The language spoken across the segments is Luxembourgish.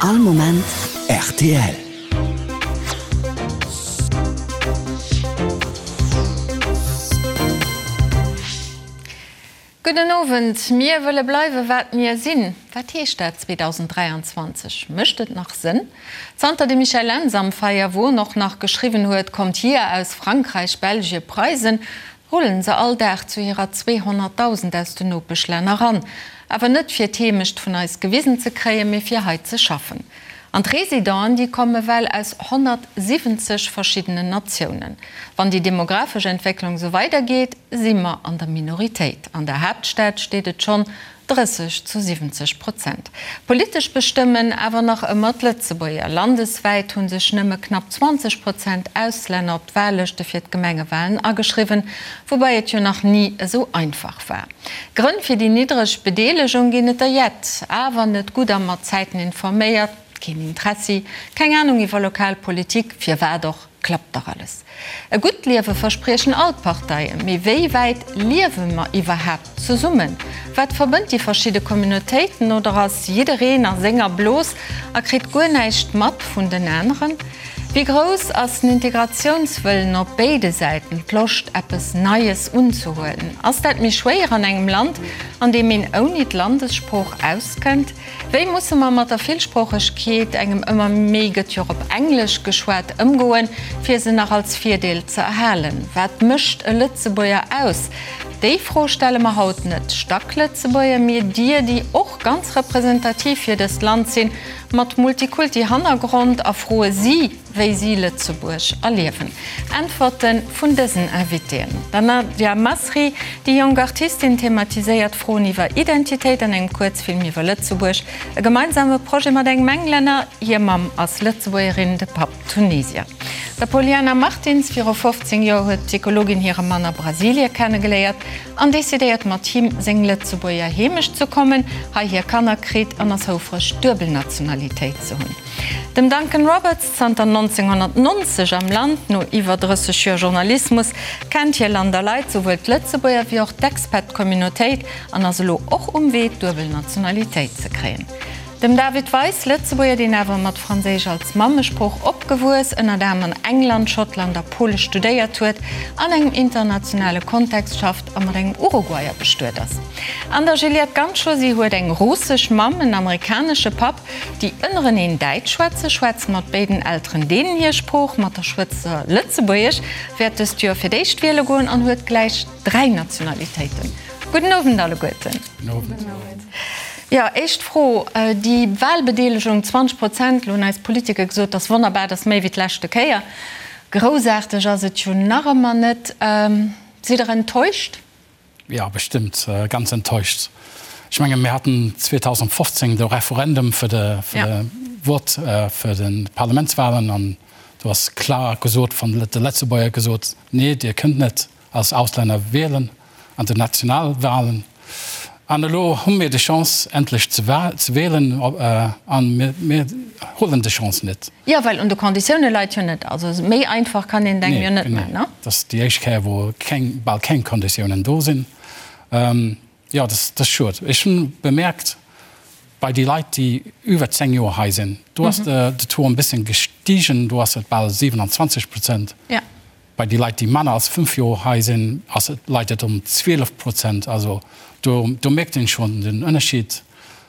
All Moment rtl. Gudden Owend. Mir wëlle bleiwe wat mir sinn. Wat heescht dat 2023? Mécht et nach Sënn? Zanter de Michel Lentz am Feierwon och nach geschriwwen huet, Kommt hier aus Frankräich, Belgie, Preisen, rullen se all Dag zu hirer 200.000 aus den Nopeschlänner ran. Awer net fir d'Heemecht vun eis gewisen ze kréien, mee fir hei ze schaffen. An d'Residenten, déi komme well aus 170 verschiddenen Natiounen. Wann déi demografesch Entwécklung esou weidergeet, si mer an der Minoritéit. An der Haaptstad steet et schonn 30 zu 70 Prozent. Politesch bestëmmen awer nach ëmmer d'Lëtzebuerger. Landeswäit hu sech nëmme knapp 20 Prozent Auslänner op d'Wahllëschte fir d'Gemengewahlen ageschriwwen, woubäi et jo nach ni esou einfach war. Grënn fir déi niddreg Bedeelegung ginn et der jett, awer net gutt a mat Zäiten informéiert, keen Interessi, keng Anung iwwer lokal Politik, firwat och, klappt dach alles. E gutt Liewe verspriechen all d'Parteien, mee wéi wäit liewe mer iwwerhaapt zesummen? Wat verbënnt déi verschidde Communautéiten oder ass jiddereen a senger Blos a kritt guer näischt mat vun den aneren? Wéi grouss ass den Integratiounswëllen op béide Säiten, d'Loscht eppes Neies unzehuelen? Ass dat méi schwéier an engem Land, an deem een ouni d'Landessprooch auskënnt? Wéi musse mer mat der Villsproochegkeet, engem ëmmer méi gëtt jo och op Englesch geschwat, ëmgoen, fir se nach als Virdeel ze erhalen? Wat mécht e Lëtzebuerger aus? Déi Fro stelle mer haut net Stacklëtzebuerger, mee dir, déi och ganz representativ fir dëst Land sinn, Mat Multikulti-Hannergrond a froe si, wéi si Lëtzebuerg erliewen. Äntwerte vun dësen Invitéen. Der Nadia Masri, déi jonk Artistin thematiséiert Froen iwwer Identitéit an engem Kuerzfilm iwwer Lëtzebuerg. E gemeinsame Projet mat engem Englänner, hir Mamm ass Lëtzebuergerin, de Papp Tunesier. Der Poliana Martins, viru 15 Joer huet d'Psychologin hire Mann a Brasilie kennegeléiert. An decidéiert mat him seng Lëtzebuerger Heemecht ze kommen, hei hir Kanner kritt an ass houfreg d'duebel Nationalitéit ze hunn. Dem Duncan Roberts, zanter 1990 am Land, no iwwer 30 Joer Journalismus, kennt hie Land a Leit, souwuel d'Lëtzebuerger wéi och d'Expat-Communautéit an ass elo och um Wee d'duebel Nationalitéit ze kréien. Dem David Weis, Lëtzebuerger, deen awer mat Franséisch als Mammesprooch opgewuess, ënnert anerem an England, Schottland a Pole studéiert huet, an engem internationale Kontext schafft a mat engem Uruguayer bestuet ass. An der Juliette Ganschow, si huet eng russesch Mamm, en amerikanesche Papp, déi ënnereneen Däitsch schwätzen, schwätzt mat béiden Elteren deenen hir Sprooch, mat der Schwëster Lëtzebuergesch, wäert dëst Joer fir d'éischt wiele goen an huet gläich dräi Nationalitéiten. Gudden Owend alleguerten. Gudden Owend. Jo, éischt Fro, déi Wahlbedeelegung, 20 Prozent, elo hunn eis Politiker gesot, dat ass wonnerbar, dat ass méi wéi d'leschte Kéier. Groussaarteg ass et jo nach ëmmer net. Sidd Der enttäuscht? Jo, bestëmmt, ganz enttäuscht. Ech menge mir haten 2015 de Referendum fir de Vott fir de Parlamentswahlen an do ass klar gesot vun de Lëtzebuerger gesot, nee, Dir kënnt net als Auslänner wielen an den Nationalwahlen. An elo hu mir déi Chance endlech ze wielen a mir huelen déi Chance net. Jo, well un de Konditioune leit jo net. Also méi einfach kann een et engem jo net maachen, ne? Nee, dat ass déi éischt Kéier, wou keng, bal keng Konditiounen do sinn. Jo, dat ass schued. Ech hunn bemerkt, bei déi Leit, déi iwwer 10 Joer hei sinn, do ass de Taux e bëssen gestigen, do ass et bal 27 Prozent. Bei déi Leit, déi manner als 5 Joer hei sinn, ass et, leit et um 12 Prozent. Also do, do mierkt een schonn den Ënnerschied.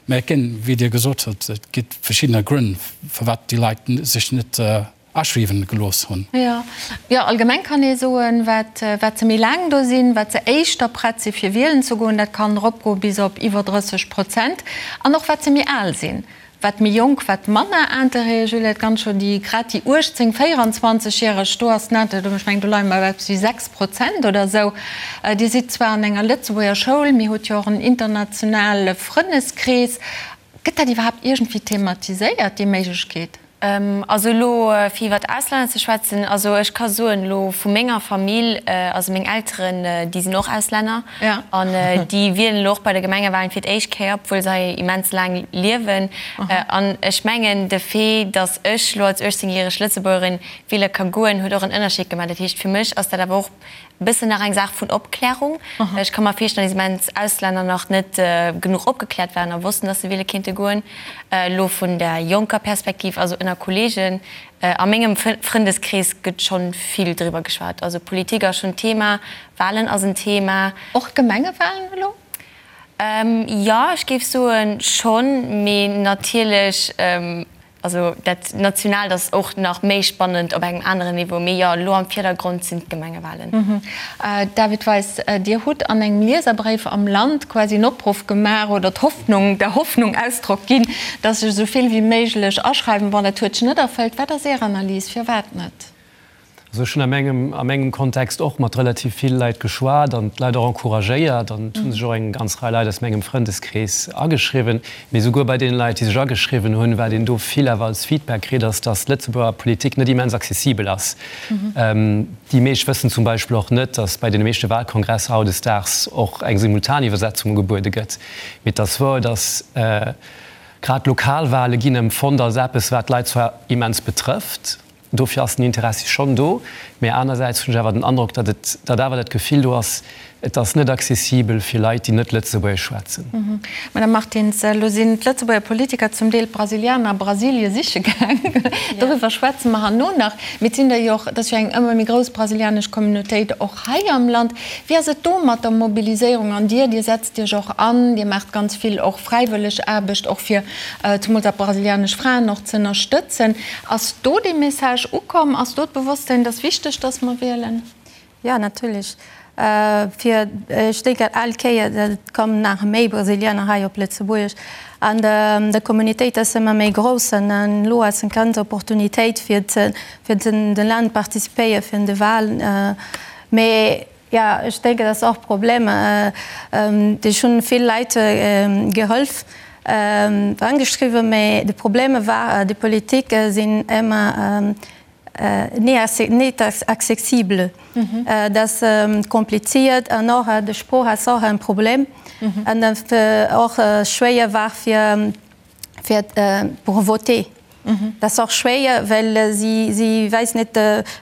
Mä et ginn, wéi Dir gesot hutt, et gi verschiddener Grënn, firwat déi Leit sech net aschriwwen gelooss hunn. Jo, jo, allgemeng kann ee soen, wat, wat se méi laang do sinn, wat se éischter prett si fir wielen ze goen, dat kann eropgoe bis op iwwer 30 Prozent, an och wat se méi al sinn. Wat méi jonk, wat manner Interêt. Juliette Ganschow, déi grad déi 18, 24 järeg, do ass den Interêt, ech mengen do leie mer bei eppes wéi 6 Prozent oder esou. Dir sidd zwar an enger Lëtzebuerger Schoul, mee hutt jo och en internationale Frënneskrees. Gëtt dat iwwerhaapt iergendwéi thematiséiert, déi Méiglechkeet? Also elo fir iwwert Auslänner ze schwätzen, also ech ka soen elo vu menger Famill, also meng Elteren déi sinn och Auslänner an déi wielen elo och bei de Gemengewahlen fir d'éischt Kéier, obwuel se hei immens laang liewen. An ech mengen de Fait, datt ech elo als 18 järeg Lëtzebuergerin wiele ka goen, huet och en Ënnerscheed gemaach. Dat heescht fir mech ass dat awer och. Bëssen nach eng Saach vun Opklärung. Ech ka mer virstellen, datt immens Auslänner nach net genuch opgekläert waren a wossten, datt se wiele kéinte goen. Elo vun der jonker Perspektiv, also ënner Kolleegen a mengem Frëndeskrees gëtt schonn vill driwwer geschwat. Also Politik ass schonn Thema, Walen ass en Thema. Och d'Gemengewalen elo? Jo, ech géif soen schonn, mee natierlech Also dat Nationaalt ass och nach méi spannend op engem aneren Niveau. Mee jo, elo am Virdergrond sinn d'Gemengewalen. David Weis, Dir hutt an engem Lieserbréif am Land quasi en Opruff gemaach oder d'Hoffnung, der Hoffnung Ausdrock ginn, datt sech esou vill wéi méiglech aschreiwen. Bon, dat huet sech net erfëllt. Wat ass Är Analys? Firwat net? Also ech hunn a mengem, a mengem Kontext och mat relativ vill Leit geschwat an d'Leit och encouragéiert an et hu sech och eng ganz Rei Leit aus mengem Frëndeskrees ageschriwwen. Mee souguer bei deene Leit, déi sech ageschriwwen hunn, wat een do vill awer als Feedback kritt, ass, datt d'Lëtzebuerger Politik net immens accessibel ass. Déi meescht wëssen zum Beispill och net, datt bei deene meeschte Wahlkongresser hautdesdaags och eng Simultaniwwersetzung ugebuede gëtt. Mee et ass wouer, datt grad d'Lokalwahle ginn empfonnt als eppes, wat d'Leit zwar immens betrëfft, Dofir ass den Interessi schonn do, mä anersäits hunn ech awer den Androck, datt et, datt awer dat Gefill do ass, et ass net accessibel fir Leit, déi net Lëtzebuergesch schwätzen. Madame Martins, elo sinn d'Lëtzebuerger Politiker zum Deel d'Brasilianer a Brasilie siche gaang. Doriwwer schwätze mer herno nach. Mee et sinn der jo och, et ass jo eng ëmmer méi grouss brasilianesch Communautéit och hei am Land. Wéi ass et do mat der Mobiliséierung? An Dir, Dir setzt Iech och an, Dir maacht ganz vill och fräiwëlleg Aarbecht, och fir zemools dat brasilianesch Fraen och ze ënnerstëtzen. Ass do dee Message ukomm? Ass do d'Bewosstsinn, et ass wichteg, datt mer wielen? Jo, natierlech. Fir, ech denken, all Kéier, et kommen nach méi Brasilianer hei op Lëtzebuerg an de Communautéit ass ëmmer méi grouss an elo ass eng ganz Opportunitéit fir fir den de Land participéiere fir de Wahlen. Mee Jo, ech denken, dat ass och Problem. Ech hunn vill Leit geholf, angeschriwwen, mä de Problem war, déi Politik sinn ëmmer net accessible. Dat ass kompliziert an och de Sprooch ass och en Problem an och schwéier war fir fir pour voter. Dat ass och schwéier, well si si weess net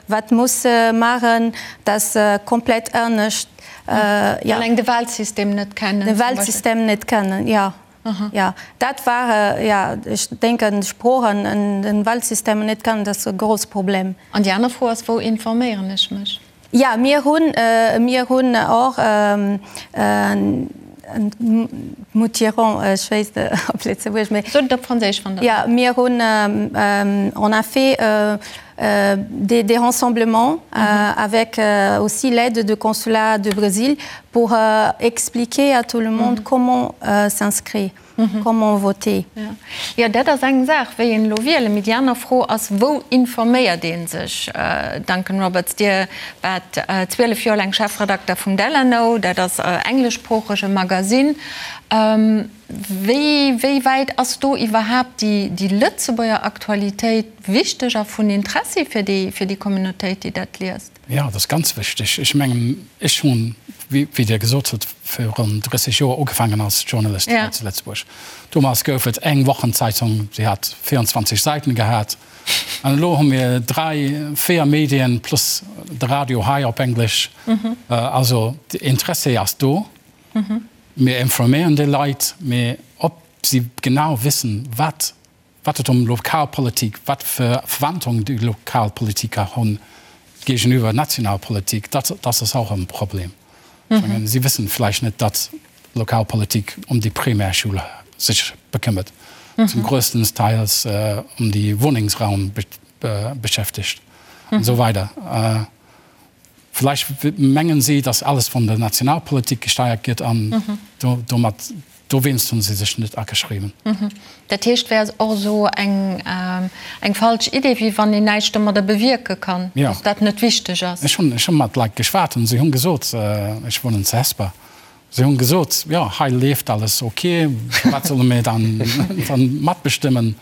wat muss maachen, dat ass komplett anescht. Jo. Alleng de Wahlsystem net kennen. De Wahlsystem net kennen, jo. Jo, dat war, jo, ech denken d'Sproochen an den Wahlsystem net kennen, dat ass e grouss Problem. An déi aner Fro ass, wou informéieren ech mech? Ja, mir hunn, mir hunn och Moutirons, ech weess net op Lëtzebuergesch, mee. Sot et op Franséisch, wann Der. Ja, mir hunn, on a fait des des rassemblements avec aussi l'aide de consulat de Brésil pour expliquer à tout le monde comment s'inscrire. Comment voter? Jo, dat ass eng Saach, wéi een elo wielen. Mee déi aner Fro ass, Wou informéiert ee sech? Duncan Roberts, Dir waart 12 Joer laang Chefredakter vum Delano, dat ass e engleschsproochege Magasinn. Wéi, wéi wäit ass do iwwerhaapt déi, déi Lëtzebuerger Aktualitéit wichteg a vun Interessi fir déi, fir déi Communautéit, déi dat liest? Jo, dat ass ganz wichteg. Ech mengen, ech hunn, wéi Dir gesot hutt, virun 30 Joer ugefaangen als Journalist hei zu Lëtzebuerg. Domat gouf et eng Wochenzeitung, déi hat 24 Säiten gehat. An elo hu mir dräi, véier Medien plus de Radio hei op Englesch. Also de Interessi ass do. Mir informéieren déi Leit, mee ob si genau wissen, wat Wat et ëm Lokalpolitik, wat fir Verantwortung déi Lokalpolitiker hunn géigeniwwer Nationalpolitik, dat dat ass och e Problem. Ech mengen, si wëssen vläicht net, datt Lokalpolitik ëm déi Primärschoul sech bekëmmert, zum grössten Teils ëm déi Wunnengsraum beschäftegt an esou weider. Vläicht mengen si, datt alles vun der Nationalpolitik gesteiert gëtt an domat, dowéinst hunn si sech net ageschriwwen. Dat heescht, wär och esou eng eng falsch Idee, wéi wann een näischt domadder bewierke kann, datt dat net wichteg ass. Ech hunn, ech hu mat Leit geschwat an si hunn gesot, ech wunnen zu Hesper, si hunn gesot, jo hei leeft alles ok, firwat solle mir dann dann matbestëmmen?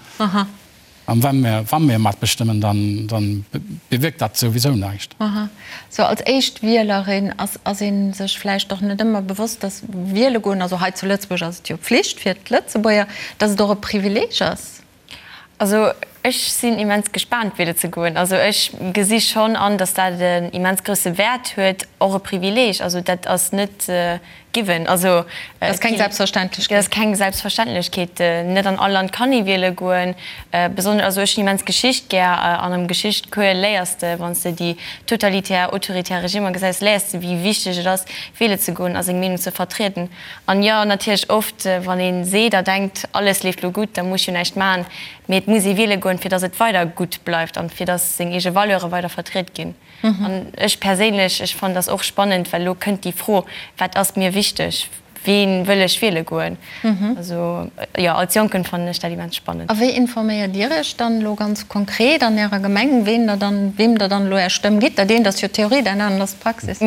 An wa mir, wa mir matbestëmmen, dann, dann bewierkt dat souwisou näischt. Aha. Sou als éischt Wielerin ass, ass ee sech vläicht och net ëmmer bewosst, dass wiele goen, also hei zu Lëtzebuerg ass et jo Pflicht fir d'Lëtzebuerger, dass et och e Privileeg ass. Also. Ech sinn immens gespaant wiele ze goen. Also ech gesi schonn an, datt dat en immens grousse Wäert huet, och e Privileeg. Also dat ass net given. Also Dat ass keng Selbstverständlechkeet. Dat ass keng Selbstverständlechkeet. Net an all Land kann ee wiele goen. Besonnesch, also ech hunn immens Geschicht gär an am Geschichtcours léiers de, wann s de déi totalitär, autoritär Regimmer gesäis, léiers de wéi wichteg et ass wiele ze goen a seng Meenung ze vertrieden. An jo, natierlech oft, wann ee seet a denkt, alles leeft lo gutt, da muss ech jo näischt maachen, mee et muss ee wiele goen, fir datt et weider gutt bleift an fir datt seng eege Valeure weider vertriet ginn. An ech perséinlech, ech fannen dat och spannend, well elo kënnt déi Fro, wat ass mir wichteg, ween wëll ech wiele goen? Also jo, als Jonken fannen ech dat immens spannend. A wéi informéiert Dir Iech dann elo ganz konkret an Ärer Gemeng, ween der dann, weem Der dann elo Är Stëmm gitt? Dat eent ass jo d'Theorie, dat anert ass d'Praxis.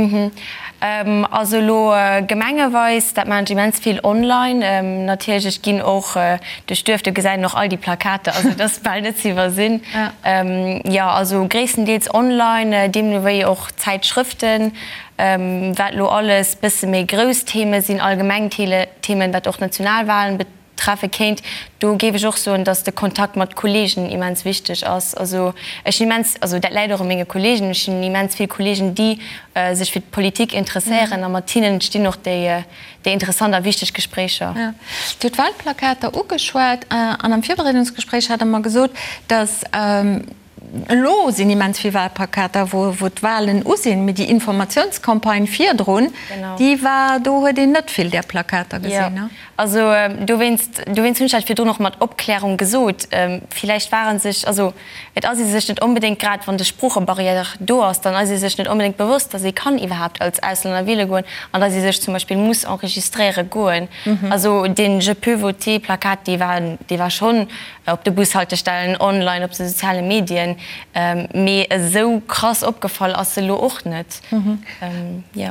Also elo gemengeweis, dat maachen ech immens vill online. Natierlech, ech ginn och duerch d'Duerf, do gesäit een och all déi Plakater, also et ass bal net ze iwwersinn. Jo, also gréisstendeels online, deemno wéi och Zäitschrëften, wat elo alles bësse méi grouss Theme sinn, allgemeng Themen, wat och Nationalwahlen treffe kéint. Do géif ech och soen, dass de Kontakt mat Kollegen immens wichteg ass. Also ech hunn immens, also dat läit och u menge Kollegen, ech hunn immens vill Kollegen, déi sech fir d'Politik interesséieren a mat hinnen stinn och déi interessant a wichteg Gespréicher. Jo. Dir hutt d'Wahlplakater ugeschwat an am Virbereedungsgespréich hat Der mer gesot, dass Elo sinn immens vill Wahlplakater, wou d'Wahlen u sinn, mee déi Informatiounscampagne virdrun, déi war, do huet een net vill där Plakater gesinn. Jo, also dowéinst, dowéinst hunn ech dat virdrun och mat Opklärung gesot. Villäicht ware sech, also et ass ee sech net onbedéngt, grad wann de Sproochebarrière do ass, dann ass ee sech net onbedéngt bewosst, datt ee kann iwwerhaapt als Auslänner wiele goen an datt ee sech zum Beispill muss enregistréiere goen. Also dee Je peux voter Plakat, dee war, dee war schonn op de Bushaltestellen, online, op de soziale Medien, mee esou krass opgefall ass se elo och net.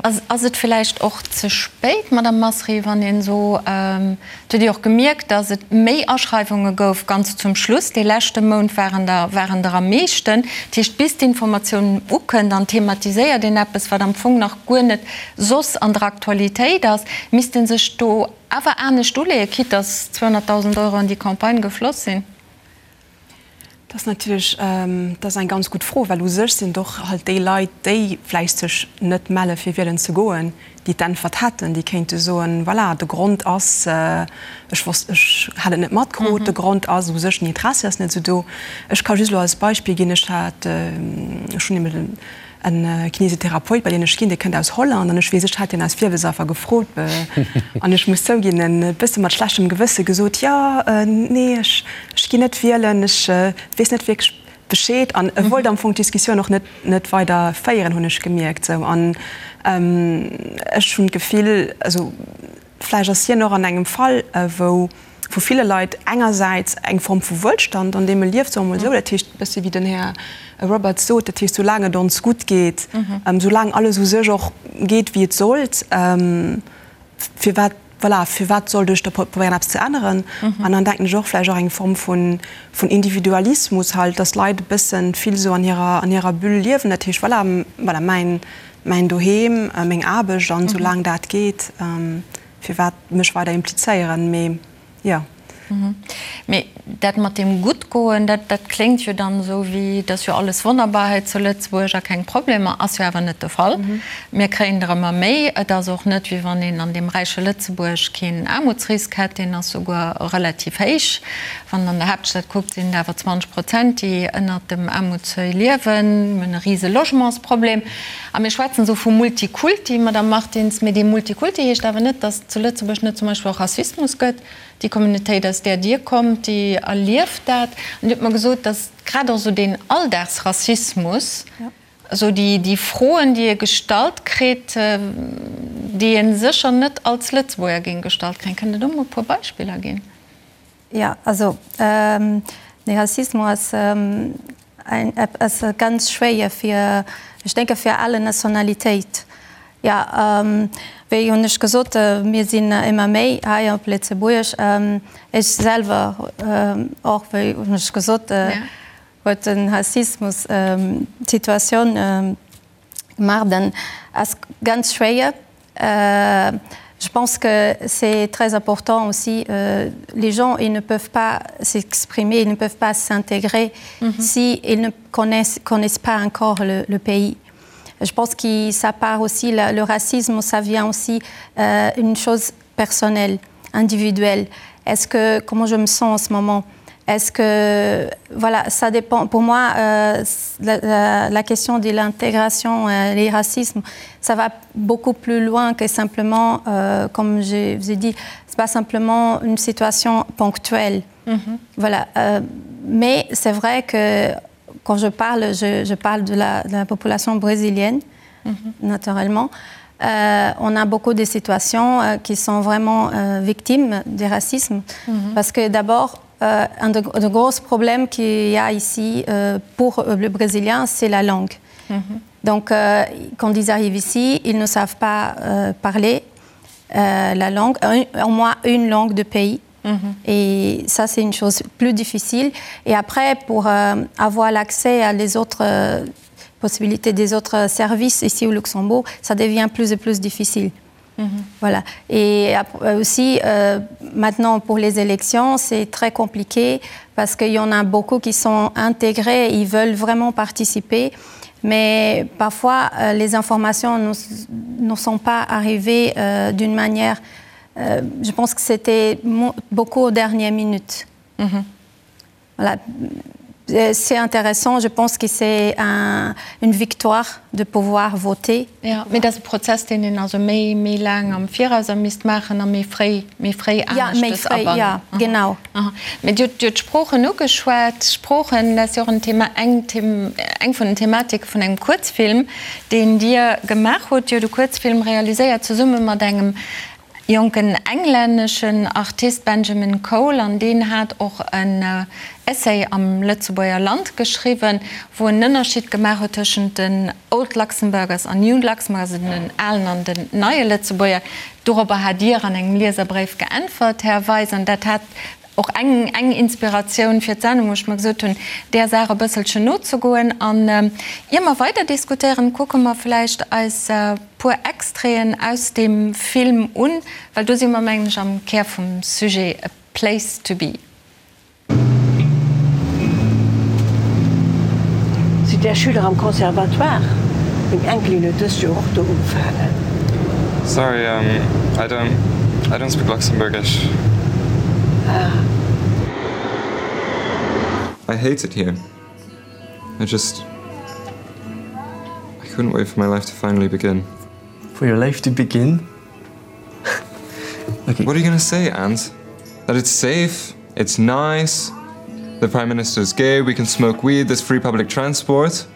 Ass et villäicht och ze spéit, Madame Masri, wann een esou, et huet ee och gemierkt, datt et méi Aschreiwunge gouf ganz zum Schluss, dee leschte Mount waren der waren der am meeschten, dat heescht bis d'Informatioun ukënnt an thematiséiert een eppes, wat am Fong nach guer net soss an der Aktualitéit ass, misst ee sech do Awer anescht uleeën, quitte dass 200.000 Euro an déi Campagne gefloss sinn? Dat ass natierlech, dat ass eng ganz gutt Fro, well u sech sinn et och halt déi Leit, déi vläicht sech net melle fir wielen ze goen, déi d'Äntwert hätten, déi kéinte soen, voilà, de Grond ass, ech wosst, ech hat et net matkrut, de Grond ass u sech, den Interessi ass net esou do. Ech ka just elo als Beispill ginn, ech hat, ech hunn eben En Kinesitherapeut, bei deen ech ginn, dee kënnt aus Holland an ech weess, ech hat hien aus Virwëlzaffer gefrot an ech muss zouginn, e bësse mat schlechtem Gewësse gesot, jo, nee, ech ech ginn net wielen, ech weess net wierklech Bescheed an e wollt am Fong d'Diskussioun och net net weider féieren, hunn ech gemierkt sou. An ech hunn d'Gefill, also vläicht ass hien och an engem Fall, wou vu ville Leit engersäits eng Form vu Wuelstand, an deem e lieft, soe mer emol esou, dat heescht e bëssi wéi den Här Roberts sot, dat heescht soulaang et ons gutt geet, soulaang alles u sech och geet wéi et sollt, firwat, voilà, firwat sollt ech da probéieren eppes ze änneren? An dann denken ech och vläicht och eng Form vun Individualismus halt, dass d'Leit e bësse vill esou an hirer, an hirer Bulle liewen, dat heescht voilà, voilà, mäin, mäin Doheem, meng Aarbecht an soulaang dat geet, Firwat mech weider implizéieren? Mee jo. Mee dat mat deem Guttgoen, dat, dat kléngt jo dann esou wéi, et ass jo alles wonnerbar hei zu Lëtzebuerg a keng Problemer. Ass jo awer net de Fall. Mir kréien der ëmmer méi. Et ass och net, wéi wann een an deem räiche Lëtzebuerg keen Aarmutsrisk hätt. Deen ass souguer relativ héich. Wann een an der Haaptstad kuckt, sinn et awer 20 Prozent, déi ënnert dem Aarmutsseuil liewen. Mir hunn e rise Logementsproblem. A mir schwätzen esou vu Multikulti, Madame Martins, mee dee Multikulti heescht awer net, datt et zu Lëtzebuerg net zum Beispill och Rassismus gëtt. Déi Communautéit, aus där Dir kommt, déi erlieft dat. An Dir hutt mer gesot, datt grad och esou deen Alldagsrassismus, esou déi Froen, déi ee gestallt kritt, déi ee sécher net als Lëtzebuerger géing gestallt kréien. Kënnt Der do mol e puer Beispiller ginn? Jo, also de Rassismus ass ass ganz schwéier fir, ech denke fir alle Nationalitéit. Jo, wéi hunn ech gesot, mir sinn ëmmer méi hei op Lëtzebuerg. Ech selwer och, wéi hunn ech gesot, huet den Rassismus d'Situatioun gemaach. Dann ass ganz schwéier. Je pense que c'est très important aussi euh, les gens ils ne peuvent pas s'exprimer, ils ne peuvent pas s'intégrer mm -hmm. si ils ne connaissent, connaissent pas encore le, le pays. Je pense que ça part aussi la, le racisme, ça vient aussi euh, une chose personnelle, individuelle. Est-ce que comment je me sens en ce moment? Est-ce que voilà, ça dépend pour moi euh, la, la, la question de l'intégration euh, les racismes, ça va beaucoup plus loin que simplement euh, comme je vous ai dit, c'est pas simplement une situation ponctuelle. Mm -hmm. Voilà euh, mais c'est vrai que quand je parle, je, je parle de la, de la population brésilienne mm -hmm. naturellement. Euh, on a beaucoup de situations euh, qui sont vraiment euh, victimes du racisme mm -hmm. parce que d'abord euh, un de, de gros problèmes qu'il y a ici euh, pour euh, le brésilien c'est la langue mm -hmm. donc euh, quand ils arrivent ici ils ne savent pas euh, parler euh, la langue un, au moins une langue de pays mm -hmm. et ça c'est une chose plus difficile et après pour euh, avoir l'accès à les autres euh, possibilités des autres services ici au Luxembourg ça devient plus et plus difficile mm -hmm. voilà et euh, aussi euh, maintenant pour les élections c'est très compliqué parce qu'il y en a beaucoup qui sont intégrés ils veulent vraiment participer mais parfois euh, les informations ne, ne sont pas arrivées euh, d'une manière euh, je pense que c'était beaucoup aux dernières minutes mm -hmm. voilà Euh, c'est intéressant, je pense que c'est un, une victoire de pouvoir voter. Ja, mee dat ass e Prozess, deen een also méi, méi laang am Viraus a misst maachen a méi fréi, méi fréi Ja, méi aneschtes fréi, ja, abannen. genau. Aha. Mee Dir hutt, Dir hutt d'Sproochen ugeschwat. Sproochen, dat ass jo och en Thema, eng Them, eng vun den Thematike vun engem Kuerzfilm, deen Dir gemaach hutt. Dir hutt e Kuerzfilm realiséiert zesumme mat engem jonken englänneschen Artist Benjamin Cole, an deen hat och en Essay am Lëtzebuerger Land geschriwwen, wou en Ënnerscheed gemaach huet tëschent den Old Luxembourgers an New Luxembourgers, also den alen an den neie Lëtzebuerger. Dorobber hat Dir an engem Lieserbréif geäntwert, Här Weis, an dat hat och eng eng Inspiratioun fir d'Sendung, wou ech mer gesot hunn, där Saach e bësselchen nozegoen. An ier mer weider diskutéieren, kucke mer vläicht eis puer Extraiten aus deem Film un, well do si mer, mengen ech, am Kär vum Sujet A Place to Be. Sidd Är Schüler am Conservatoire? Meng Enkelin huet dëst Joer och do ugefaangen. Sorry, I don't, I don't speak Luxembourgish. Ah. I hate it here. I just, I couldn't wait for my life to finally begin. For your life to begin? Okay. What are you gonna say, Ant? That it's safe, it's nice, the Prime Minister's gay, we can smoke weed, there's free public transport.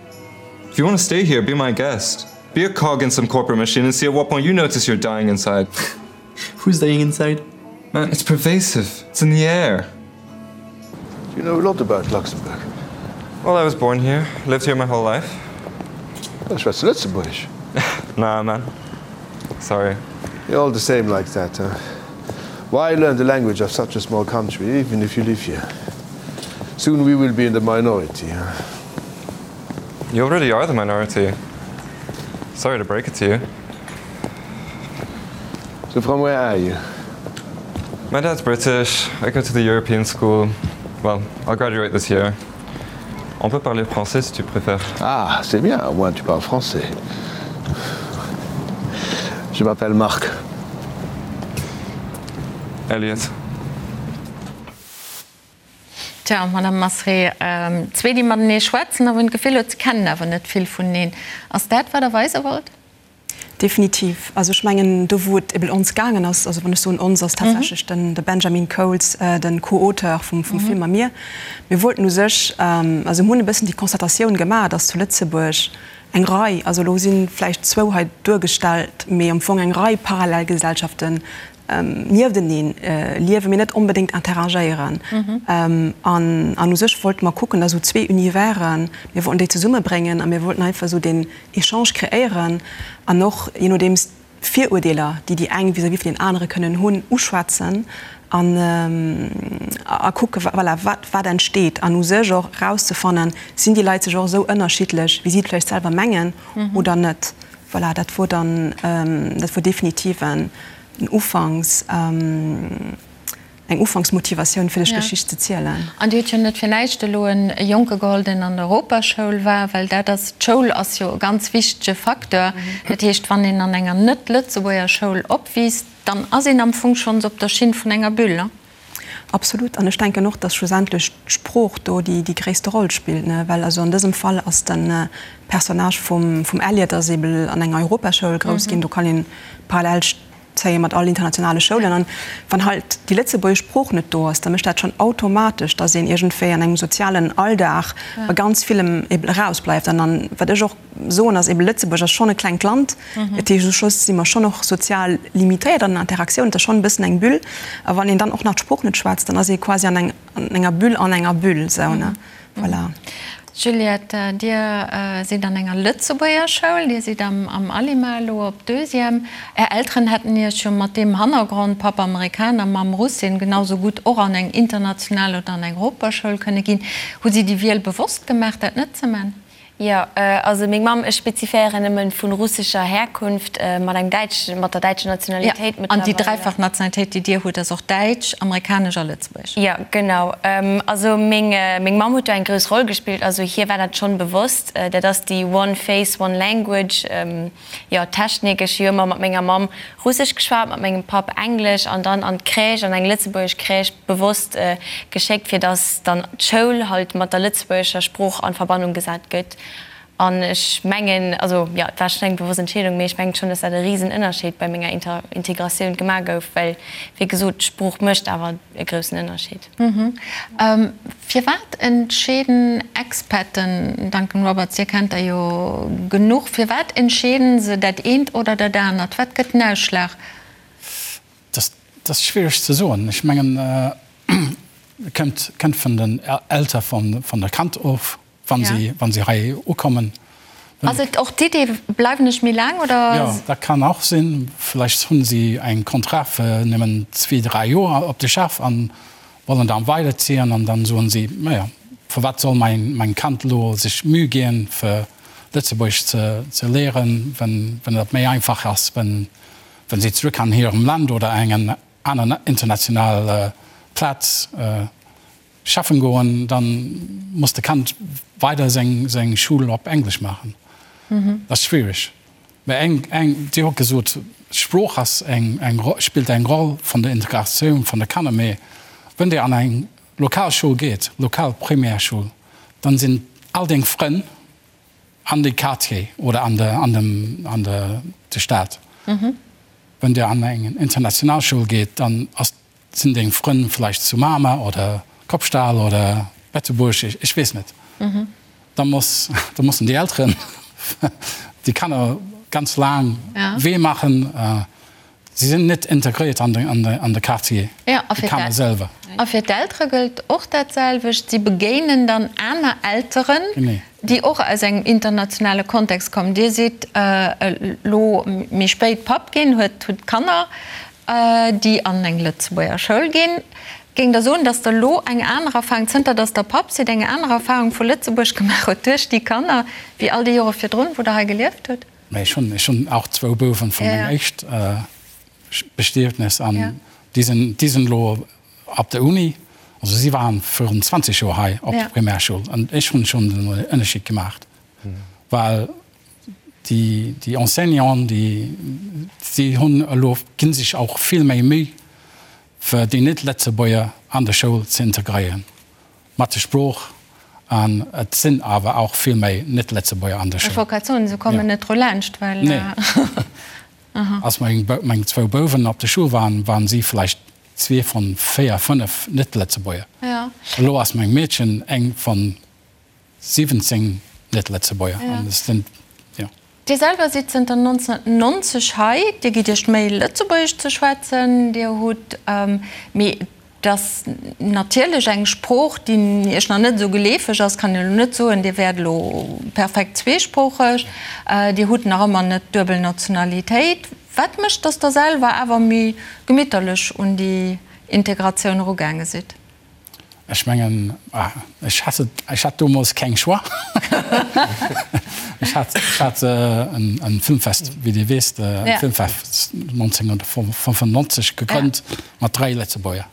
If you want to stay here, be my guest. Be a cog in some corporate machine and see at what point you notice you're dying inside. Who's dying inside? Man, it's pervasive. It's in the air. You know a lot about Luxembourg. Well, I was born here, lived here my whole life. Schwätz du Lëtzebuergesch? Nah, man. Sorry. You're all the same like that, huh? Why learn the language of such a small country, even if you live here? Soon we will be in the minority, huh? You already are the minority. Sorry to break it to you. So from where are you? My dad's British. I go to the European school. Well, I'll graduate this year. On peut parler français si tu préfères. Ah, c'est bien, au moins tu parles français. Je m'appelle Marc. Elliot. Tja, Madame Masré, zwee déi matenee schwätzen a wou een d'Gefill huet, se kennen awer net vill vuneneen. Ass dat, wat Der weise wollt? Definitiv. Also ech mengen, do wou et eben ons gaangen ass, also wann ech soen ons, ass tatsächlech den de Benjamin Coles, de Co-Auteur vum vum Film a mir, mir wollten u sech, also mir hunn e bëssen déi Constatatioun gemaach, datt zu Lëtzebuerg eng Rei, also elo si vläicht zwou hei duergestallt, mee am Fong eng Rei Parallelgesellschaften niefteneen liewen, mee net onbedéngt interagéieren. An an u sech wollte mer kucken, da sou zwee Universen, mir wollten déi zesummebréngen a mir wollten einfach esou deen Echange kreéieren an och, je nodeems, d'Virurdeeler, déi déi eng vis-à-vis vun deenen anere kënnen hunn, uschwätzen an a kucke, voilà, wat wat entsteet an u sech och erauszefannen, sinn déi Leit sech och esou ënnerschiddlech, wéi si et vläicht selwer mengen oder net. Voilà, dat wor dann, dat wor definitiv en. en Ufanks, eng Ufanksmotivatioun fir dech Geschicht ze zielen. An Dir hutt jo net fir näischt elo e Jonke geholl, deen an der Europaschoul war, well dat ass, d'Schoul ass jo e ganz wichtege Facteur. Dat heescht, wann een an enger net-Lëtzebuerger Schoul opwiisst, dann ass een am Fong schonns op der Schinn vun enger Bulle. Absolut. An ech denken och, dass schlussendlech d'Sprooch do déi gréisste Roll spillt, ne? Well also an dësem Fall ass de Personnage vum Elliot ass eebel an enger Europaschoul grouss ginn. Do kann een parallel zéie mat all internationale Schoulen. An wann halt déi lëtzebuergesch Sprooch net do ass, da mécht dat schonn automatesch, dass een iergendwéi an engem sozialen Alldag bei ganz villem eebel erausbleift. An dann, wat ech och soen, ass eebel, Lëtzebuerg ass schonn e klengt Land. Dat heescht, u Schluss si mer schonn och sozial limitéiert an den Interaktiounen. Et ass schonn e bëssen eng Bulle. A wann een dann och nach d'Sprooch net schwätzt, dann ass ee quasi an enger Bulle an enger Bulle esou, ne? Voilà. Juliette, Dir sidd an enger Lëtzebuerger Schoul, Dir sidd am Alima elo op Deuxième. Är Elteren hätten Iech jo mat deem Hannergrond, Papp Amerikaner, Mamm Russin, genau sou gutt och an eng international oder an eng Europaschoul kënne ginn. Hu si déi Wiel bewosst gemaach, dat net ze man? Jo, also meng Mamm, ech speziféieren nëmmen, vu russescher Herkunft, mat engem däitschen, mat der däitscher Nationalitéit mëttlerweil. An déi dräifach Nationalitéit, déi Dir hutt, ass och däitsch, amerikanesch a lëtzebuergesch? Jo, genau. Also meng, meng Mamm huet do eng grouss Roll gespillt. Also hir war dat schonn bewosst. Dat ass déi One Face, One Language, jo, Technik. Ech hu jo ëmmer mat menger Mamm Russesch geschwat, mat mengem Papp Englesch an dann an d'Crèche, an eng lëtzebuergesch Crèche bewosst geschéckt, fir dass dann d'Schoul halt mat der lëtzebuergescher Sprooch an Verbannung gesat gëtt. An ech mengen, also jo, et war schonn eng bewosst Entscheedung, mee ech mengen schonn, dass dat e risen Ënnerscheed bei menger Integratioun gemaach gouf, well wéi gesot, d'Sprooch mécht awer e groussen Ënnerscheed. Firwat entscheeden Expaten, Duncan Roberts, Dir kennt der jo genuch, firwat entscheeden se dat eent oder dat anert? Wat gëtt den Ausschlag? Dat ass schwiereg ze soen. Ech mengen, et kënnt vun den Eltere vun der Kand of. Wann si, wann si hei ukommen. Ass et och d'Idee, bleiwen ech méi laang, oder? Jo, dat kann och sinn. Vläicht hunn si eng Contrat fir nëmmen zwee, dräi Joer op de Schaff an wollen dann weiderziehen an dann soen si, naja, firwat soll mäin, mäin Kand elo sech Mühe ginn, fir Lëtzebuergesch ze, ze léieren, wenn, wenn dat méi einfach ass, wenn, wenn si zrëck an hirem Land oder engen aner international Plaz Schaffen goen, dann muss de Kand weider seng seng Schul op Englesch maachen. Dat ass schwierig. Mä eng eng Dir hutt gesot, d'Sprooch ass eng eng spillt eng Roll vun der Integratioun vun de Kanner. Mä wënn Dir an eng lokal Schoul geet, lokal Primärschoul, dann sinn all deng Frënn an de Quartier oder an de an dem an de de Stad. Wënn Dir an eng international Schoul geet, dann ass Sinn deng Frënn vläicht zu Mamer oder Kopstal oder Betzebuerg, ech weess net. Da muss, da mussen déi Elteren déi Kanner ganz laang Wee maachen. Si sinn net integréiert an de Quartier, déi Kanner selwer. A fir d'Eltere gëllt och dat selwecht, si begéinen dann aner Elteren, déi och aus engem internationale Kontext kommen. Dir sidd elo méi spéit Papp ginn, hutt Kanner. déi an eng Lëtzebuerger Schoul ginn. Géingt Der soen, datt Der elo eng aner Erfahrung, zënter datt Der Papp sidd, eng aner Erfahrung vu Lëtzebuerg gemaach hutt duerch déi Kanner, wéi all déi Jore virdrun, wou Der hei gelieft hutt? Mä ech hunn, ech hunn och zwou Bouwen vu mengem éischt Bestietnes an déi sinn, déi sinn elo op der Uni. Also si waren virun 20 Joer hei op der Primärschoul an ech hunn schonn den Ënnerscheed gemaach, well Déi, déi Enseignanten, déi, déi hunn elo, gi sech och vill méi Méi, fir déi Net-Lëtzebuerger an de Schoul ze integréieren, mat der Sprooch. An et sinn awer och vill méi Net-Lëtzebuerger an der Schoul. Ech wollt grad soen, se kommen net dru laanscht, well. Nee. Als meng, meng zwou Bouwen op der Schoul waren, waren si vläicht zwee von véier, fënnef Net-Lëtzebuerger. Elo ass meng Meedchen eng von 17 Net-Lëtzebuerger an et sinn, jo. Dir selwer sidd zënter 1990 hei. Dir gitt Iech d'Méi, Lëtzebuergesch ze schwätzen. Dir hutt, mee et ass natierlech eng Sprooch, déi Iech nach net esou geleefeg ass, kann een elo net soen, Dir wäert elo perfekt zweesproocheg. Dir hutt nach ëmmer net d'duebel Nationalitéit. Wat mécht, datt Der selwer awer méi gemitterlech un déi Integratioun erugaange sidd? Ech mengen, ech hat, ech hat domols keng Choix. Ech hat, ech hat en Filmfest, wéi Dir weess, e Filmfest 1995 gegrënnt mat 3 Lëtzebuerger.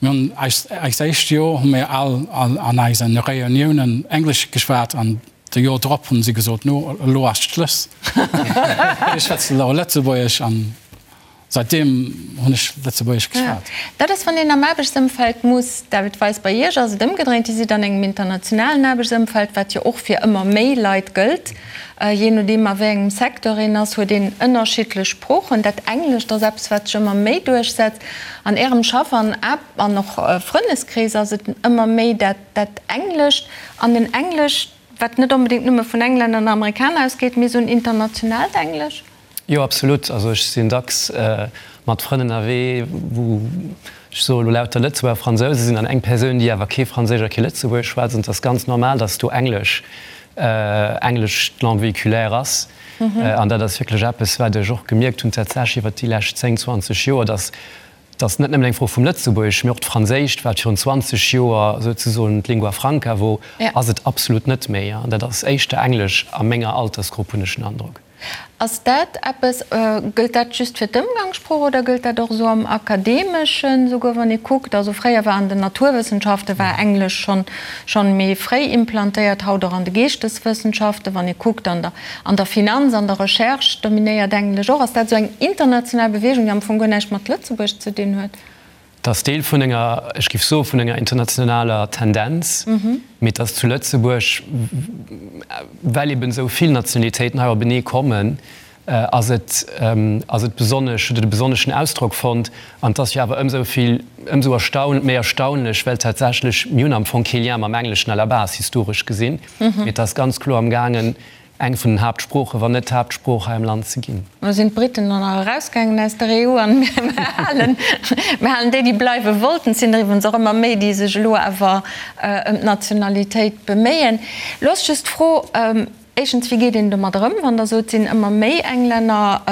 Mir hunn eis, eist éischt Joer hu mir all an eise Reuniounen Englesch geschwat an de Joer drop hunn si gesot, no elo ass Schluss, mir schwätzen elo Lëtzebuergesch an Seitdeem hunn ech Lëtzebuergesch geschwat. Dat ass, wann een am Aarbechtsëmfeld muss, David Weis, bei Iech ass et ëmgedréint, Dir sidd an engem internationalen Aarbechtsëmfeld, wat jo och fir ëmmer méi Leit gëllt. Jee nodeem a wéi engem Secteur een ass, huet een ënnerschiddlech Sproochen. Dat Englescht ass eppes, wat sech ëmmer méi duerchsetzt. An Ärem Schaff an an och Frëndeskrees ass et ëmmer méi dat dat Englescht an en Englesch, wat net onbedéngt nëmme vun Englänner an Amerikaner ausgeet, mee esou en internationaalt Englesch. Jo, absolut. Also ech sinn dacks mat Frënn ënnerwee, wou, ech soe lo lauter Lëtzebuerger, Fransouse sinn an eng Persoun, déi awer kee Franséisch a kee Lëtzebuergesch schwätzt. An et ass ganz normal, datt do Englesch, Englesch d'Langue véhiculaire ass. An dat ass wierklech eppes, wat ech och gemierkt hunn tatsächlech iwwert déi lescht 10, 20 Joer, datt Et ass net nëmmen eng Fro vum Lëtzebuergesch, mee och d'Franséischt, wat virun 20 Joer souzesoen d'Lingua franca wor, ass et absolut net méi. An dat ass éischter Englesch a menger Altersgrupp, hunn ech den Androck. Ass dat eppes, gëllt dat just fir d'Ëmgangssprooch oder gëllt dat och esou am Akademeschen, souguer wann ee kuckt, also fréier war an den Naturwëssenschafte war Englesch schonn schonn méi fréi implantéiert, haut och an de Geeschteswëssenschaften, wann ee kuckt an der An der Finanz, an der Recherche dominéiert Englesch och. Ass dat esou eng international Beweegung, déi am Fong guer näischt mat Lëtzebuerg ze dinn huet? Et ass Deel vun enger, ech géif soe vun enger internationaler Tendenz, mee et ass zu Lëtzebuerg, well eben esou vill Nationalitéiten hei openee kommen, ass et, ass et besonnesch, huet et e besonneschen Ausdrock fonnt. An et ass jo awer ëmsou vill, ëmsou erstaun, méi erstaunlech, well tatsächlech, mir hunn am Fong kee Lien mam Engleschen à la base, historesch gesinn. Mee et ass ganz kloer am gaangen, eng vun den Haaptsproochen, wann net d'Haaptsprooch hei am Land ze ginn. Elo sinn d'Briten dann nach erausgaangen aus der EU an mir halen, mir halen déi, déi bleiwe wollten. Et sinn der iwwerens och ëmmer méi, déi sech elo awer ëm d'Nationalitéit beméien. Elo ass just d'Fro, éischtens, wéi geet een domat ëm, wann Der sot, et sinn ëmmer méi Englänner,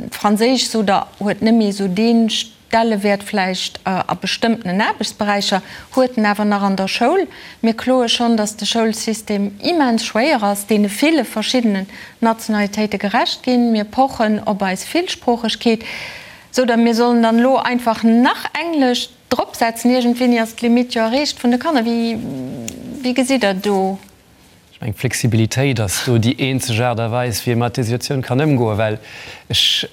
Franséisch sot Der, huet net méi esou dee Stellewäert vläicht a bestëmmtenen Aarbechtsberäicher, huet en awer nach an der Schoul. Mir kloe schonn, datt de Schoulsystem immens schwéier ass, deene ville verschiddenen Nationalitéite gerecht ginn. Mir pochen op eis Villsproochegkeet, sou datt mir sollen dann elo einfach nach Englesch dropsetzen. Iergendwéini ass d'Limitt jo erreecht vun de Kanner. Wéi, wéi gesitt Der do? Ech mengen, Flexibilitéit ass do déi eenzeg Aart a Weis, wéi ee mat där Situatioun kann ëmgoen, well ech,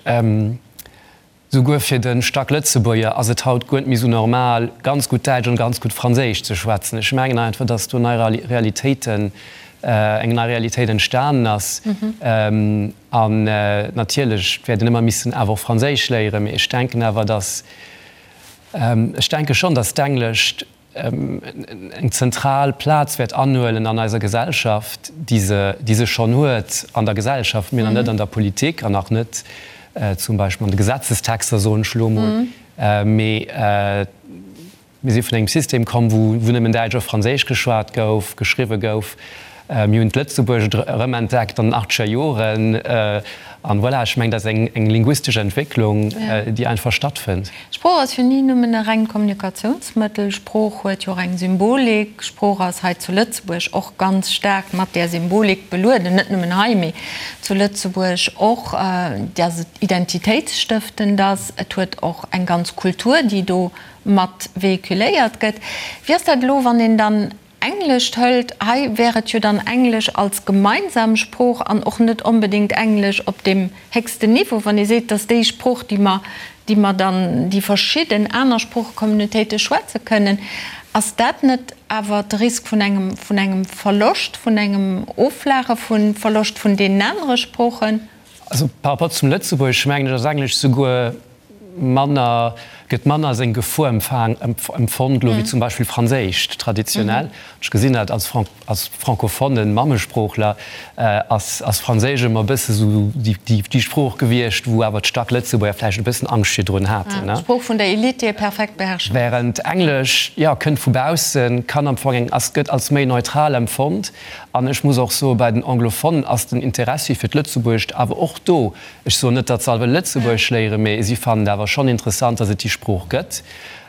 Souguer fir de Stacklëtzebuerger ass et haut guer net méi sou normal, ganz gutt Däitsch an ganz gutt Franséisch ze schwätzen. Ech mengen einfach, dass do nei Realitéiten, eng nei Realitéit entstanen ass. An natierlech wäert een ëmmer missen awer och Franséisch léieren, mee ech denken awer, dass, ech denke schonn, dass d'Englescht, eng zentral Plaz wäert anhuelen an eiser Gesellschaft, déi se, déi se schonn huet an der Gesellschaft, mee nach net an der Politik an nach net zum Beispill an de Gesetzestexter, soen ech elo emol. Mee mir si vun engem System komm, wou, wou nëmmen Däitsch a Franséisch geschwat gouf, geschriwwe gouf. Mir hunn d'Lëtzebuergescht erëmentdeckt an den achtzeger Joren. An voilà, ech mengen, dat ass eng, eng linguistesch Entwécklung, déi einfach stattfënnt. Sprooch ass jo ni nëmmen e rengt Kommunikatiounsmëttel. Sprooch huet jo och eng Symbolik. Sprooch ass hei zu Lëtzebuerg och ganz staark mat där Symbolik belueden, net nëmmen hei, mee zu Lëtzebuerg och, dass et identitéitsstëftend ass. Et huet och eng ganz Kultur, déi do mat véhiculéiert gëtt. Wéi ass dat elo, wann een dann Englescht hëlt, hei wär et jo dann Englesch als gemeinsam Sprooch an och net onbedéngt Englesch op deem héchsten Niveau, wann ee seet, dass déi Sprooch, déi mer, déi mer dann, déi verschidden aner Sproochecommunautéite schwätze kënnen, ass dat net awer de Risk vun engem, vun engem Verloscht, vun engem Offlaache vu Verloscht vun deenen anere Sproochen? Also par rapport zum Lëtzebuergesch mengen ech, ass Englesch souguer manner, gëtt manner als eng Gefor empfaang, empfonnt elo wéi zum Beispill Franséischt traditionell. Ech gesinn dat als Fran, als francophonen Mammesproochler ass, ass Franséisch ëmmer e bësse sou déi, déi, déi Sprooch gewiescht, wou awer d'Stacklëtzebuerger vläicht e bëssen Angscht virdrun haten, ne. D'Sprooch vun der Elite, déi ee perfekt beherrsche muss. Während Englesch, jo, kënnt vu baussen, kann am Fong eng, ass, gëtt als méi neutral empfonnt. An ech muss och soen, bei den Anglophonen ass den Interessi fir d'Lëtzebuergescht awer och do. Ech soen net, datt se all wëlle Lëtzebuergesch léieren, mee si fannen et awer schonn interessant, datt et déi Sprooch gëtt.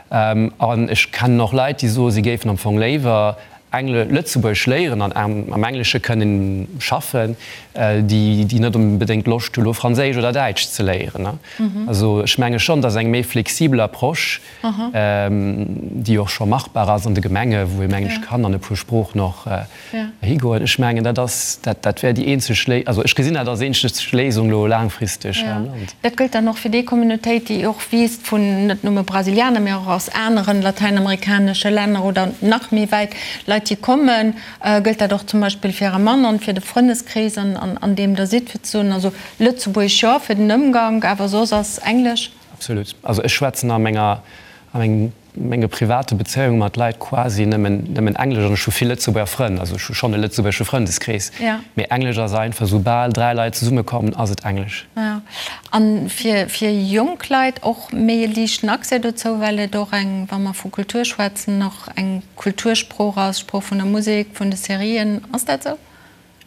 An ech kennen och Leit, déi soen, si géifen am Fong léiwer Engle Lëtzebuergesch léieren an am Englesche kënnen schaffen, déi déi net onbedéngt Loscht hu lo Franséisch oder Däitsch ze léieren. Also ech menge schonn, datt eng méi flexibel Approche, déi och scho machbar ass an de Gemenge wou ee mengen ech kann an e puer Sproochen och higoen, ech mengen dat ass dat dat wär déi eenzeg Léi also ech gesinn dat als eenzeg Léisung lo laangfristeg hei am Land. Dat gëllt dann och fir déi Communautéit, déi och wiisst vun net nëmme Brasilianer, mee och aus aneren latäinamerikanesche Länner oder nach méi wäit Leit, déi kommen. Gëllt dat och zum Beispill fir Äre Mann an fir de Frëndeskrees, an deem Der sidd, fir ze soen, also Lëtzebuergesch jo fir den Ëmgank, awer soss ass Englesch? Absolut. Also ech schwätzen a menger, a mengem, menge private Bezéiunge mat Leit quasi nëmmen, nëmmen Englesch an ech hu vill Lëtzebuerger Frënn, also ech hu schonn e lëtzebuergesche Frëndeskrees, mee Englesch ass einfach, soubal 3 Leit zesummekommen, ass et Englesch. Jo, a fir, fir jonk Leit och méi e liichten Accès dozou, well et och eng, wa mer vu Kultur schwätzen, och eng Kultursprooch ass, Sprooch vun der Musek, vun de Serien. Ass dat esou?